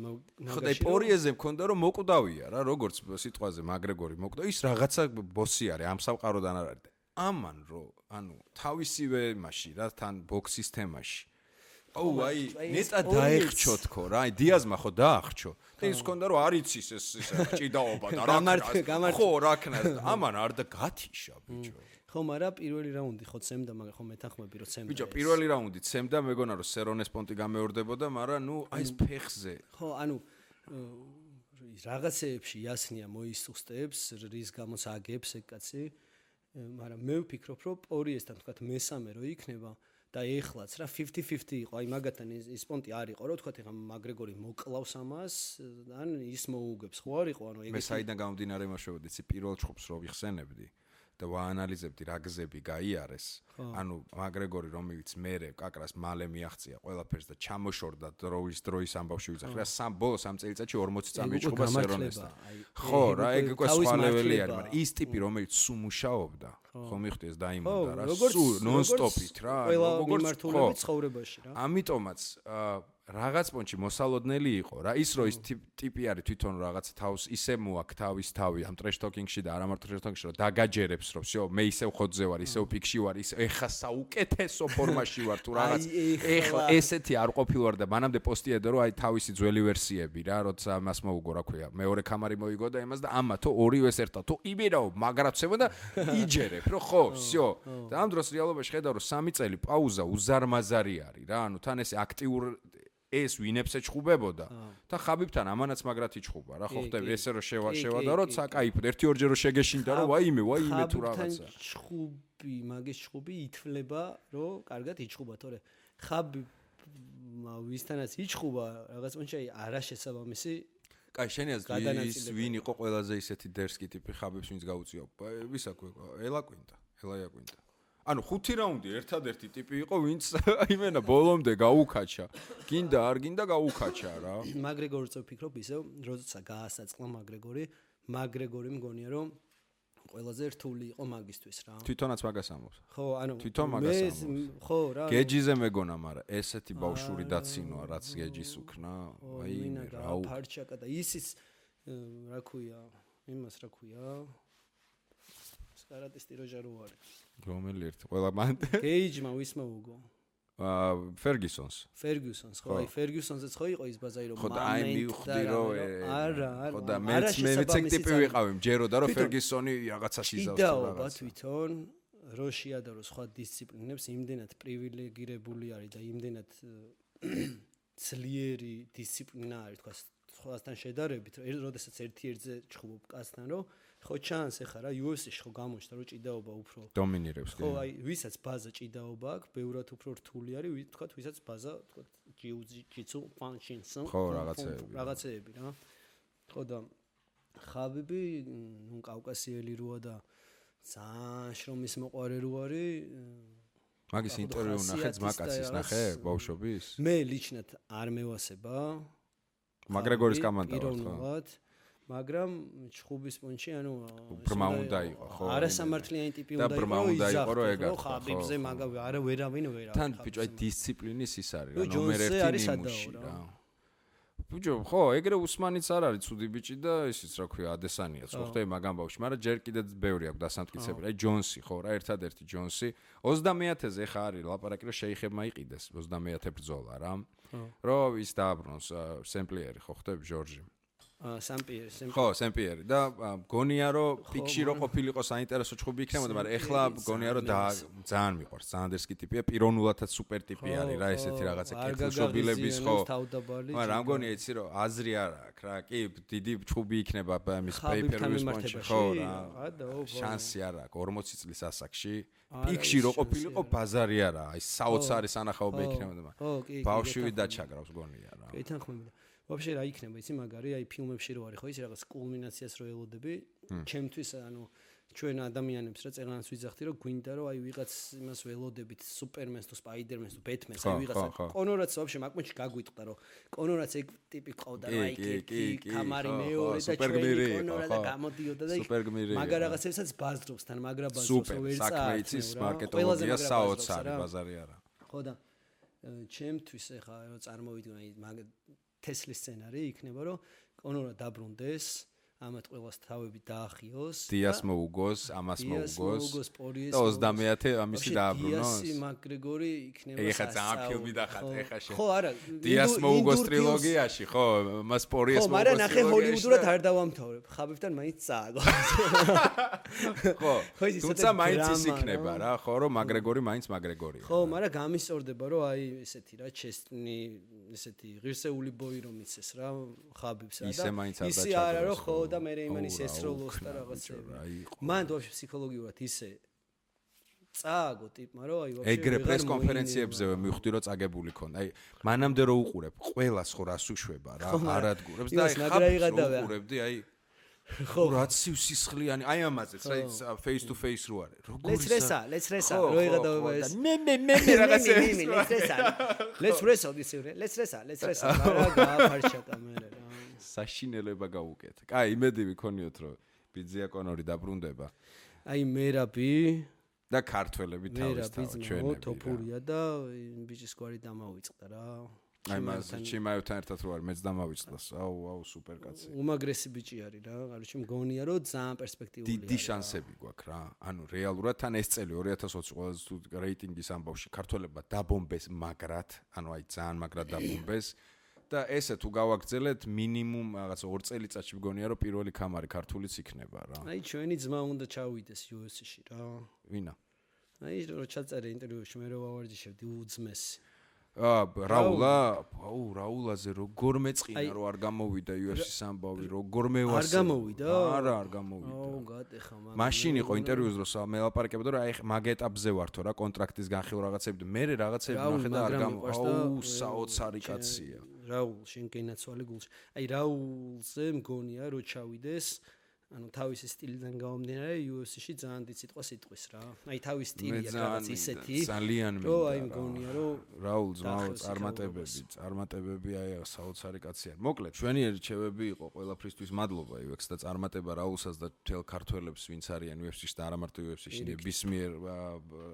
A: მაგაში ხო პორიეზე მქონდა რომ მოკვდავია რა როგორც სიტყვაზე მაგრეგორი მოკვდა ის რაღაცა ბოსი არის ამ სამყაროდან არ არის ამან რო ანუ თავისივე მასში რა თან ბოქსის თემაში აი ნეტა დაეხჩო თქო რა აი დიაზმა ხო დაახჩო და ის მქონდა რომ არ იცის ეს ჭიდაობა და რა ხო რა ქნა ამან არ და გათიშა ბიჭო
B: ხო მაგრამ პირველი რაუნდი ხო ცემდა მაგრამ ხო მეთანხმები რომ ცემდა
A: ბიჭო პირველი რაუნდი ცემდა მეგონა რომ სერონეს პონტი გამეორდებოდა მაგრამ ნუ აი ეს ფეხზე
B: ხო ანუ რაღაცეებში იასნია მოისუსტებს რის გამოც აგებს ეგ კაცი მაგრამ მე ვფიქრობ რომ პორიესთან თქვა მესამე რო იქნება და ეხლაც რა 50-50 იყო აი მაგათთან ის პონტი არ იყო რომ თქვა ეხა მაგრეგორი მოკლავს ამას ან ის მოუგებს ხო არ იყო ანუ
A: ეგ მე საიდან გამომდინარე იმაშევოდი ცი პირველ ჩხუბს რო ვიხსენებდი და ვაანალიზებდი რა გზები გაიარეს ანუ მაგრეგორი რომელიც მერე კაკრას მალე მიაღწია ყველაფერს და ჩამოშორდა დროის ამბავში ვიძახი რა სამ ბოლოს ამ წელიწადში 40 წამი ჩხუბა სერონესთან ხო რა ეგ უკვე სხვა ლეველი არის მაგრამ ის ტიპი რომელიც სულ მუშაობდა ხო მიხდი ეს დაიმონდა რა სულ ნონ-სტოპით რა
B: როგორც მიმართულებით ცხოვრებაში რა
A: ამიტომაც რაღაც პონჩი მოსალოდნელი იყო რა ის რო ის ტიპი არის თვითონ რაღაც თავს ისე მოაქვს თავის თავი ამ ტრეშ ტოკინგში და არა მარტო ტრეშ ტოკინგში რომ დაგაჯერებს რომ всё მე ისევ ხოძზე ვარ ისევ პიკში ვარ ის ეხა საუკეთესო ფორმაში ვარ თუ რაღაც ეხლა ესეთი არ ყოფილვარ და მანამდე პოსტიედა რომ აი თავისი ძველი ვერსიები რა როცა მას მოუგო რა ქვია მეორე კამარი მოიგო და იმას და ამათო ორივეს ერთად თუ იმერავ მაგრაცებო და იჯერებ რომ ხო всё და ამ დროს რეალობაში ხედავ რომ 3 წელი პაუზა უზარმაზარი არის რა ანუ თან ესე აქტიურ ეს ვინებს ეჩხუბებოდა და ხაბიბთან ამანაც მაგრად იჩხუბა რა ხო ხდები ესე რომ შევადა რომ საკაიფოდ ერთი ორჯერ რომ შეგეშინდა რომ ვაიმე თუ რაღაცა
B: ჩხუბი მაგის ჩხუბი ითვლება რომ კარგად იჩხუბა თორე ხაბი ვისთანაც იჩხუბა რაღაც პონჩი არა შესაბამისი
A: კაი შენი აზრი ის ვინ იყო ყველაზე ისეთი დერსკი ტიპი ხაბებს ვინც გაუწია ვისაქვე ელაიაკვინტა ანუ 5 რაუნდი ერთადერთი ტიპი იყო ვინც იმენა ბოლომდე გაუკაჩა გინდა არ გინდა გაუკაჩა რა
B: მაგრეგორიც ვფიქრობ ისევ როცა გაასაწყლა მაგრეგორი მგონია რომ ყველაზე რთული იყო მაგისთვის რა
A: თვითონაც მაგას ამბობს
B: ხო ანუ
A: თვითონ მაგას ამბობს
B: ხო რა
A: გეჯიზე მეგონა მაგრამ ესეთი ბავშვური დაცინოა რაც გეჯის უკნა აი
B: რა ფარჩაკა და ისიც რა ქვია იმას რა ქვია კარატისტი როჟერო არის
A: რომელი ერთი ყველა მან
B: გეიჯმა ვისმა უგო
A: ფერგუსონს
B: ხო აი ფერგუსონზეც ხო იყო ის ბაზარი რომ
A: ხო და აი მივხვდი რომ
B: არა
A: ხო და მეც ეგ ტიპი ვიყავი მჯეროდა რომ ფერგუსონი რაღაცას იზავს
B: რაღაცა თვითონ როშია და რო სხვა დისციპლინებს იმდენად პრივილეგირებული არის და იმდენად ძლიერი დისციპლინა არის თქვა სხვასთან შედარებით როდესაც ერთ-ერთზე ჩხუბობ კაცთან რომ ხო ჩანს ეხა რა UFC-ში ხო გამოჩნდა რომ ჭიდაობა უფრო
A: დომინირებს
B: ხო აი ვისაც ბაზა ჭიდაობა აქვს ბევრად უფრო რთული არის თქვა ვისაც ბაზა თქვა ჯიუ-ჯიტსუ პანჩინსო
A: ხო რაღაცეები
B: რა ხო და ხაბიბი ნუ კავკასიელი როა და ძალიან შრომის მოყარე რო არის
A: მაგის ინტერვიუ ნახე ძმაკაცის ნახე ბავშვობის
B: მე ლიჩნად არ მევასება
A: მაგრეგორის კომანდა ვარ ხო
B: მაგრამ ჩხუბის პონჩი ანუ
A: ბრმა უნდა იყო ხო
B: არასამართლიანი ტიპი უნდა
A: იყო რომ
B: ხაბიბზე მაგავი არა ვერავინ
A: თან ბიჭო აი დისციპლინის ის არის რა ნომერ 1 ნიმუში რა ბიჭო, ხო, ეგრე უსმანიც არ არის ცუდი ბიჭი და ისიც რა ქვია, ადესანიაც, ხო ხტები მაგამ ბავშვი, მაგრამ ჯერ კიდე ბევრი აქვს დასამტკიცებელი. აი ჯონსი, ხო რა, ერთადერთი ჯონსი 20-ზე ხა არის ლაპარაკი, რომ შეიხებმა იყიდეს 20 ბრძოლა რა. რომ ის დააბრუნოს სემპლიერი, ხო ხტები ჟორჟი.
B: სამპიერი.
A: ხო, სემპლიერი და გონია რომ პიკში რო ყოფილიყო საინტერესო ჩხუბი იქნებოდა, მაგრამ ეხლა გონია რომ ძალიან მიყვარს, ძალიან დერსკი ტიპია, პიროვნულადაც სუპერ ტიპი არის რა, ესეთი რაღაცა კეთილშობილების ხო. მაგრამ რა მგონია იცი რომ აზრი არ აქვს რა, კი, დიდი ჩხუბი იქნება ამის pay-per-view სპონსორი, ხო რა. შანსი არ აქვს 40 წლის ასაკში. პიკში რო ყოფილიყო ბაზარი არა, აი საოცარი სანახაობა იქნებოდა. ბავშვი დაჩაგრავს გონია რა.
B: კი, თანხმობ. Вообще რა იქნება იცი მაგარი აი ფილმებში რო არის ხო ის რაღაც კულმინაციას რო ელოდები ჩემთვის ანუ ჩვენ ადამიანებს რა წერანას ვიძახდი რომ გვინდა რომ აი ვიღაც იმას ველოდებით სუპერმენს თუ სპაიდერმენს თუ ბეთმენს აი ვიღაცა კონორაც вообще მაგმოჩი გაგვიტყდა რომ კონორაც ეგ ტიპი ყავდა რა იქ კამარი მეორე და ჩვენი კონორა და გამოდიოდა და მაგარ რაღაცებსაც ბაზრობს თან მაგრა ბაზრობს ვერ წაა
A: საქმე იცის მარკეტოლოგია საოცარი ბაზარი არა
B: ხო და ჩემთვის ეხა რომ წარმოვიდგინე აი მაგ Tesla სცენარი იქნება რომ კონორა დაბრუნდეს, ამათ ყველას თავები დაახიოს.
A: დიას მოუგოს, ამას მოუგოს. და 20 ამისი დააბრუნოს.
B: დიასი მაკგრეგორი იქნება.
A: ეხა ძალიან ფილმი დახატე ეხა შე.
B: ხო, არა.
A: დიას მოუგოს ტრილოგიაში, ხო, მას პორიეს
B: მოუგოს. ხო, მაგრამ ნახე ჰოლივუდურად არ დავამთავრებ. ხაბებთან მაინც წააგო.
A: ხო. თუმცა მაინც ის იქნება რა, ხო, რომ მაკგრეგორი მაინც მაკგრეგორია.
B: ხო, მაგრამ გამისწორდება რომ აი ესეთი რა ჩესტნი, ესეთი ღირსეული ბოი რომ იცეს რა, ხაბებს რა და
A: ისე მაინც არ
B: ისე არა რომ ხო და მე იმანის ესროლოს და რაღაცები. მან თვითონ ფსიქოლოგიურად ისე წააგო ტიპმა რომ აი ვაფშე
A: ეგრე პრეს კონფერენციებზე მივხვდი რომ წაგებული ქონდა. აი მანამდე რო უყურებ, ყველას ხო რას უშვება რა, არადგურებს და აი ხაბს უყურებდი აი ხო რაც სისხლიანი აი ამაზეც რა face to face რო არის.
B: როგორ let's resa რო იღადავება ეს. მე რაღაცები. let's resa რა გააფარშა კამერა რა.
A: საშინელება გავუკეთ. კაი, იმედი ვიქონიოთ, რომ ბიძია კონორი დაბრუნდება.
B: აი მერაბი
A: და ქართველები თავისთავად ჩვენები.
B: თოფურია და ბიჭის გვარი დამავიწყდა რა.
A: აი მას ჩიმაევთან ერთად რო არის, მეც დამავიწყდას. აუ, სუპერ კაცი.
B: უმაგრესი ბიჭი არის რა. კაროჩი მგონია რომ ძალიან პერსპექტიული არის.
A: დიდი შანსები გვაქვს რა. ანუ რეალურად თან ეს წელი 2020 ყველაზე თუ რეიტინგის ამბავში ქართველებმა დაბომბეს მაგრად, ანუ აი ძალიან მაგრად დაბომბეს. და ესე თუ გავაგრძელეთ მინიმუმ რაღაც 2 წელიწადში მგონია რომ პირველი კამარი ქართულიც იქნება რა.
B: აი ჩვენი ძმა უნდა ჩავიდეს UFC-ში რა.
A: ვინა?
B: აი რო ჩაწერე ინტერვიუში მე რო ვავარჯიშებდი უძმესი.
A: რაულაზე როგორ მეწყინა რომ არ გამოვიდა UFC-ს ამბავი, როგორ მევასე.
B: არ გამოვიდა?
A: არა, არ გამოვიდა.
B: გატეხა მაგრამ.
A: მაშინ იყო ინტერვიუს დროს მელაპარაკებდა რომ აი მაგ ეტაპზე ვართო რა კონტრაქტის განხილვა რაღაცები და მე რაღაცები ნახე და არ საოცარი კაცია.
B: რაულ შენ გენაცვალე გულში. აი რაულზე მგონია რომ ჩავიდეს ანუ თავისი სტილიდან გამომდინარე UFC-ში ძალიან დიდ სიტყვას იტყვის რა. აი თავის სტილია რაღაც ისეთი.
A: ძალიან მინდა.
B: რომ აი მგონია რომ
A: რაულ წარმატებები აი საოცარი კაცია. მოკლედ ჩვენი რჩევები იყო ყველაფრისთვის მადლობა UX და წარმატება რაულსაც და თელ ქართველებს ვინც არიან UFC-ში და არა მარტო UFC-ში ნებისმიერ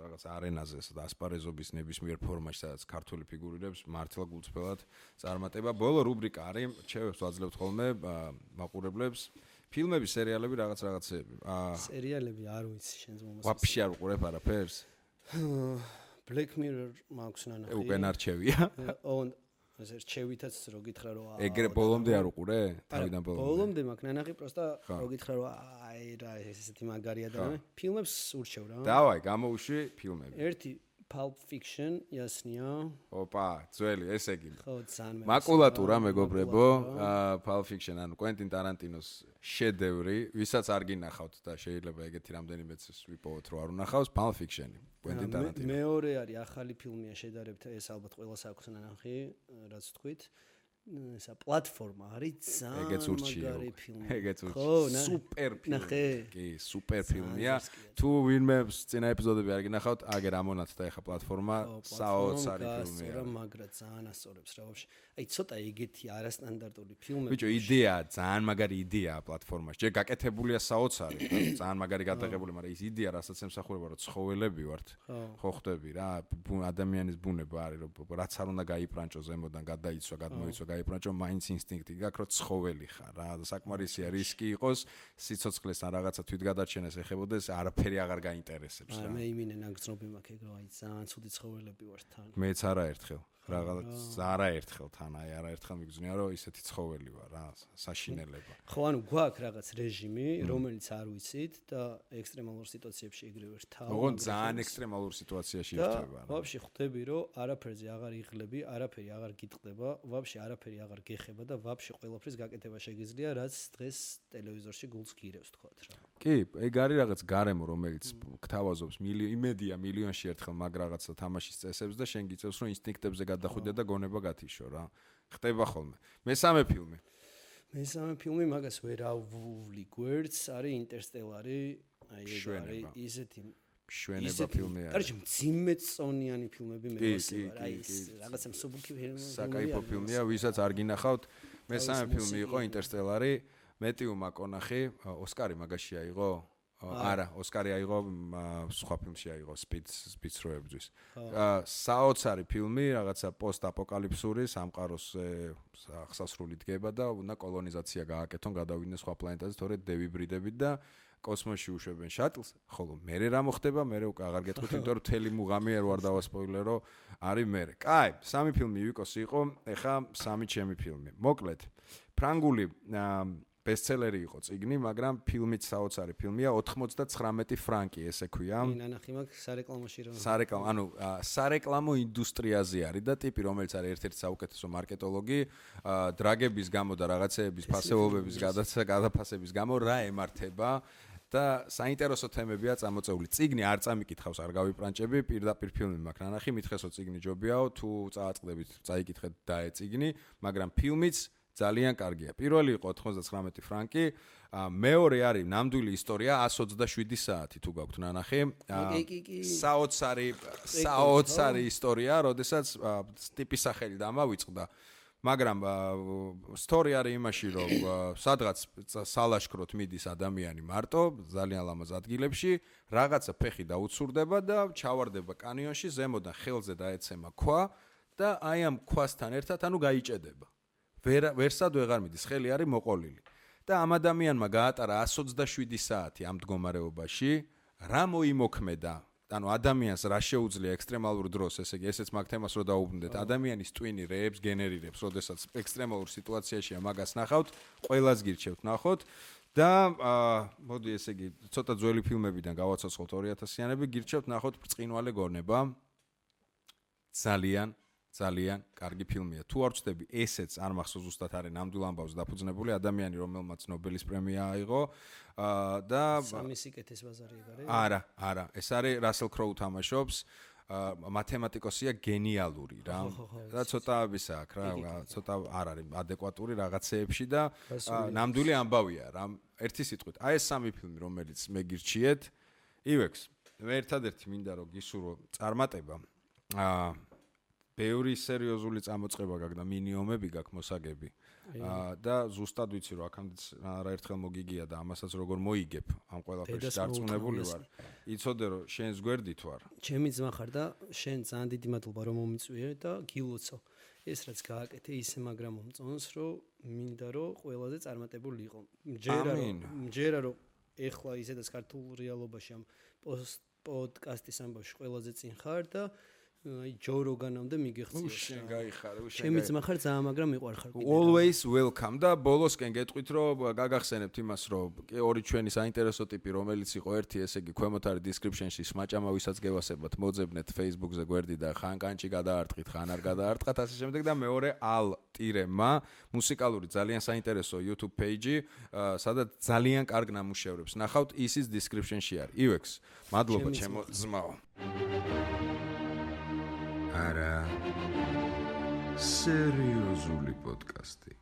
A: რაღაც არენაზე და ასპარეზობის ნებისმიერ ფორმაში სადაც ქართული ფიგურირებს მართლა გულწრფელად წარმატება. ბოლო რუბრიკა არის რჩევებს ვაძლევთ ხოლმე მაყურებლებს. ფილმები, სერიალები, რაღაცეები.
B: სერიალები არ ვიცი შენს მომასწრე.
A: ვაფშე არ უყურებ არაფერს?
B: Black Mirror მაქვს ნანახი.
A: უკენ არჩევია.
B: ეს რჩევითაც რო გითხრა რომ
A: ეგრე ბოლომდე არ უყურე? თავიდან ბოლომდე.
B: ბოლომდე მაქვს ნანახი, პროსტა რო გითხრა რომ აი რა ესეთი მაგარია და მე ფილმებს ურჩევ რა.
A: დავაი, გამოუშვი ფილმები.
B: ერთი Pulp Fiction, ясния.
A: Опа, ძველი, ესე იგი.
B: ხო, ძალიან
A: მაკულატურა მეგობრებო, Pulp Fiction, ანუ Quentin Tarantinos შედევრი, ვისაც არ გინახავთ და შეიძლება ეგეთი რამდენიმეც ვიპოვოთ რომ არ უნახავს, Pulp Fiction, Quentin Tarantino.
B: მეორე არის ახალი ფილმია შედარებით, ეს ალბათ ყველას აქვს ნანახი, რაც თქვით. ესა პლატფორმა არის ძალიან მაგარი ფილმი.
A: ეგეც ურჩი. სუპერ ფილმი. კი, სუპერ ფილმია. თუ ვინმე წინა ეპიზოდები არ გინახავთ, აგერ ამონათ და ეხა პლატფორმა საოცარი ფილმია.
B: რა მაგრა ძალიან ასწორებს რა ვაფშე. აი ცოტა ეგეთი არასტანდარტული ფილმები.
A: ბიჭო, იდეა, ძალიან მაგარი იდეაა პლატფორმაში. ჯერ გაკეთებულია საოცარი, ძალიან მაგარი გადაღებული, მაგრამ ის იდეა, რასაც ემსახურება, რომ ცხოველები ვართ. ხო ხვდები რა, ადამიანის ბუნება არის, რომ რაც არ უნდა გაიპრანჭო ზემოდან, გადაიცვა, გადმოიცვა, გაიბრანჭო, მაინც ინსტინქტი გაქვს, რომ ცხოველი ხარ რა. საკმარისია რისკი იყოს, სიცოცხლეს ან რაღაცა თვითგადარჩენას ეხებოდეს, არაფერი აღარ გაინტერესებს რა.
B: მე იმინე ნაგზნობი მაქვს ეგ, რომ აი ძალიან ცუდი ცხოველები ვარ თან.
A: მეც არაერთხელ. არაერთხელ თან, არაერთხელ მიგზნია, რომ ისეთი ცხოველი ვარ რა, საშინელება.
B: ხო, ანუ გვაქვს რაღაც რეჟიმი, რომელიც არ ვიცით და ექსტრემალურ სიტუაციებში ეგრე ვერთავ.
A: ოღონდ ძალიან ექსტრემალურ სიტუაციაში ირთვება რა.
B: ვაფშე ხვდები, რომ არაფერზე აღარ იღლები, არაფერი აღარ გიტყდება, ვაფშე არაფერი აღარ გეხება და ვაფშე ყველაფრის გაკეთება შეგიძლია, რაც დღეს ტელევიზორში გულს გირევს თქვათ რა.
A: კი, ეგ არის რაღაც გარემო, რომელიც გთავაზობს იმედია მილიონში ერთხელ მაგ რაღაცა თამაშის წესებს და შენ გიწევს, რომ ინსტინქტებზე გადახვიდე და გონება გათიშო რა. ხდება ხოლმე. მესამე ფილმი
B: მაგას ვერ ავული გვერდს, არის ინტერსტელარი, აი ეს არის ისეთი
A: შვენება ფილმი არის.
B: კარგი, მძიმეწონიანი ფილმები მე ვასწავლე, აი ეს რაღაცა მსუბუქი ფილმი.
A: საკაიფო ფილმია, ვისაც არ გინახავთ. მესამე ფილმი იყო ინტერსტელარი, მეტიუ მაკონახი, ოსკარი მაგაში აიღო? არა, ოსკარი აიღო, სხვა ფილმში აიღო, სპიც როებძვის. საოცარი ფილმი, რაღაცა პოსტ-აპოკალიფსური, სამყაროს აღსასრული დგება და უნდა კოლონიზაცია გააკეთონ, გადავიდნენ სხვა პლანეტაზე, თორედ დევიბრიდებით და კოსმოსში უშვებენ შატლს, ხოლო მერე რა მოხდება, მერე უკვე აღარ გეტყვით, იმიტომ რომ თელი მუღამი არ ვარ დავასპოილერო, არის მერე. კაი, სამი ფილმი ვიკოსი იყო, ეხა სამი ჩემი ფილმი. მოკლედ, ფრანგული ბესტსელერი იყო წიგნი, მაგრამ ფილმიც საოცარი ფილმია, 99 ფრანკი ესე ქვია.
B: ნანახი მაქვს სარეკლამოში რომ.
A: სარეკლამო ინდუსტრიაზე არის და ტიპი, რომელიც არის ერთ-ერთი საუკეთესო მარკეტოლოგი, დრაგების გამო და რაღაცეების ფასეულობების გადაფასების გამო რა ემართება და საინტერესო თემებია წამოწეული. წიგნი არ წამიკითხავს, არ გავიპრანჭები, პირდაპირ ფილმი მაქვს ნანახი, მითხესო წიგნი ჯობიაო, თუ წააწყდებით, წაიკითხეთ დაე წიგნი, მაგრამ ფილმიც ძალიან კარგია. პირველი იყო 99 ფრანკი, მეორე არის ნამდვილი ისტორია 127 საათი თუ გაქვთ ნანახი. საოცარი ისტორია, როდესაც ტიპის სახელი დამავიწყდა. მაგრამ სტორი არის იმაში, რომ სადღაც სალაშქროთ მიდის ადამიანი მარტო, ძალიან ლამაზ ადგილებში, რაღაცა ფეხი დაუცურდება და ჩავარდება კანიონში, ზემოდან ხელზე დაეცემა ქვა და აი ამ ქვასთან ერთად ანუ გაიჭედება. ვერსად ვეღარ მიდის, ხელი არის მოყოლილი. და ამ ადამიანმა გაატარა 127 საათი ამ მდგომარეობაში, რა მოიმოქმედა? ანუ ადამიანს რა შეუძლია ექსტრემალურ დროს, ესე იგი, ესეც მაგ თემას რო დაუბრუნდეთ, ადამიანის ტვინი რეებს გენერირებს, როდესაც ექსტრემალურ სიტუაციაშია მაგას ნახავთ, ყველას გირჩევთ ნახოთ და მოდი ესე იგი, ცოტა ძველი ფილმებიდან გავაცოცხლოთ 2000-იანები, გირჩევთ ნახოთ ბრწყინვალე გონება. ძალიან კარგი ფილმია. თუ არ ვწდები, ესეც არ მახსოვს ზუსტად არის ნამდვილ ამბავს დაფუძნებული ადამიანი, რომელმაც ნობელის პრემია აიღო და
B: სამი სიკეთის ბაზარი არის?
A: არა, ეს არის რასელ კროუ თამაშობს, მათემატიკოსია გენიალური რა. და ცოტა ისა აქვს რა, ცოტა არ არის ადეკვატური რაღაცეებში და ნამდვილი ამბავია რა. ერთი სიტყვით, აი ეს სამი ფილმი, რომელიც მე გირჩიეთ, ივექს. მე ერთადერთი მინდა რომ გისურვო წარმატება. ბევრი სერიოზული წამოწყება გაქვს და მინიომები გაქვს მოსაგები. და ზუსტად ვიცი რომ აქამდე არაერთხელ მოგიგია და ამასაც როგორ მოიგებ ამ ყველაფერში დარწმუნებული ვარ. იცოდე რომ შენს გვერდით ვარ.
B: ჩემი ძმა ხარ და შენ ძალიან დიდი მადლობა რომ მომიწვიე და გილოცო. ეს რაც გააკეთე ისე მაგრამ მომწონს რომ მინდა რომ ყველაზე წარმატებული იყო. მჯერა რომ ეხლა ისედაც ქართულ რეალობაში ამ პოდკასტის ამბავში ყველაზე წინ ხარ და აი ჯო როგანამდე მიგეხციო.
A: შენ გაიხარე,
B: ჩემი ძმა ხარ ძალიან, მაგრამ მიყვარხარ კიდე.
A: Always welcome და ბოლოსკენ გეტყვით რომ გაგახსენებთ იმას რომ ორი ჩვენი საინტერესო ტიპი რომელიც იყო ერთი ესე იგი ქვემოთ არის description-ში სმაჭამა ვისაც გევასებათ მოძებნეთ Facebook-ზე გვერდი და ხან კანჭი გადაარტყით, ხან არ გადაარტყათ ასე შემდეგ და მეორე al-ma მუსიკალური ძალიან საინტერესო YouTube page-ი სადაც ძალიან კარგ ნამუშევრებს ნახავთ, ისიც description-ში არის. ივექს, მადლობა ჩემო ძმაო. არა სერიოზული პოდკასტი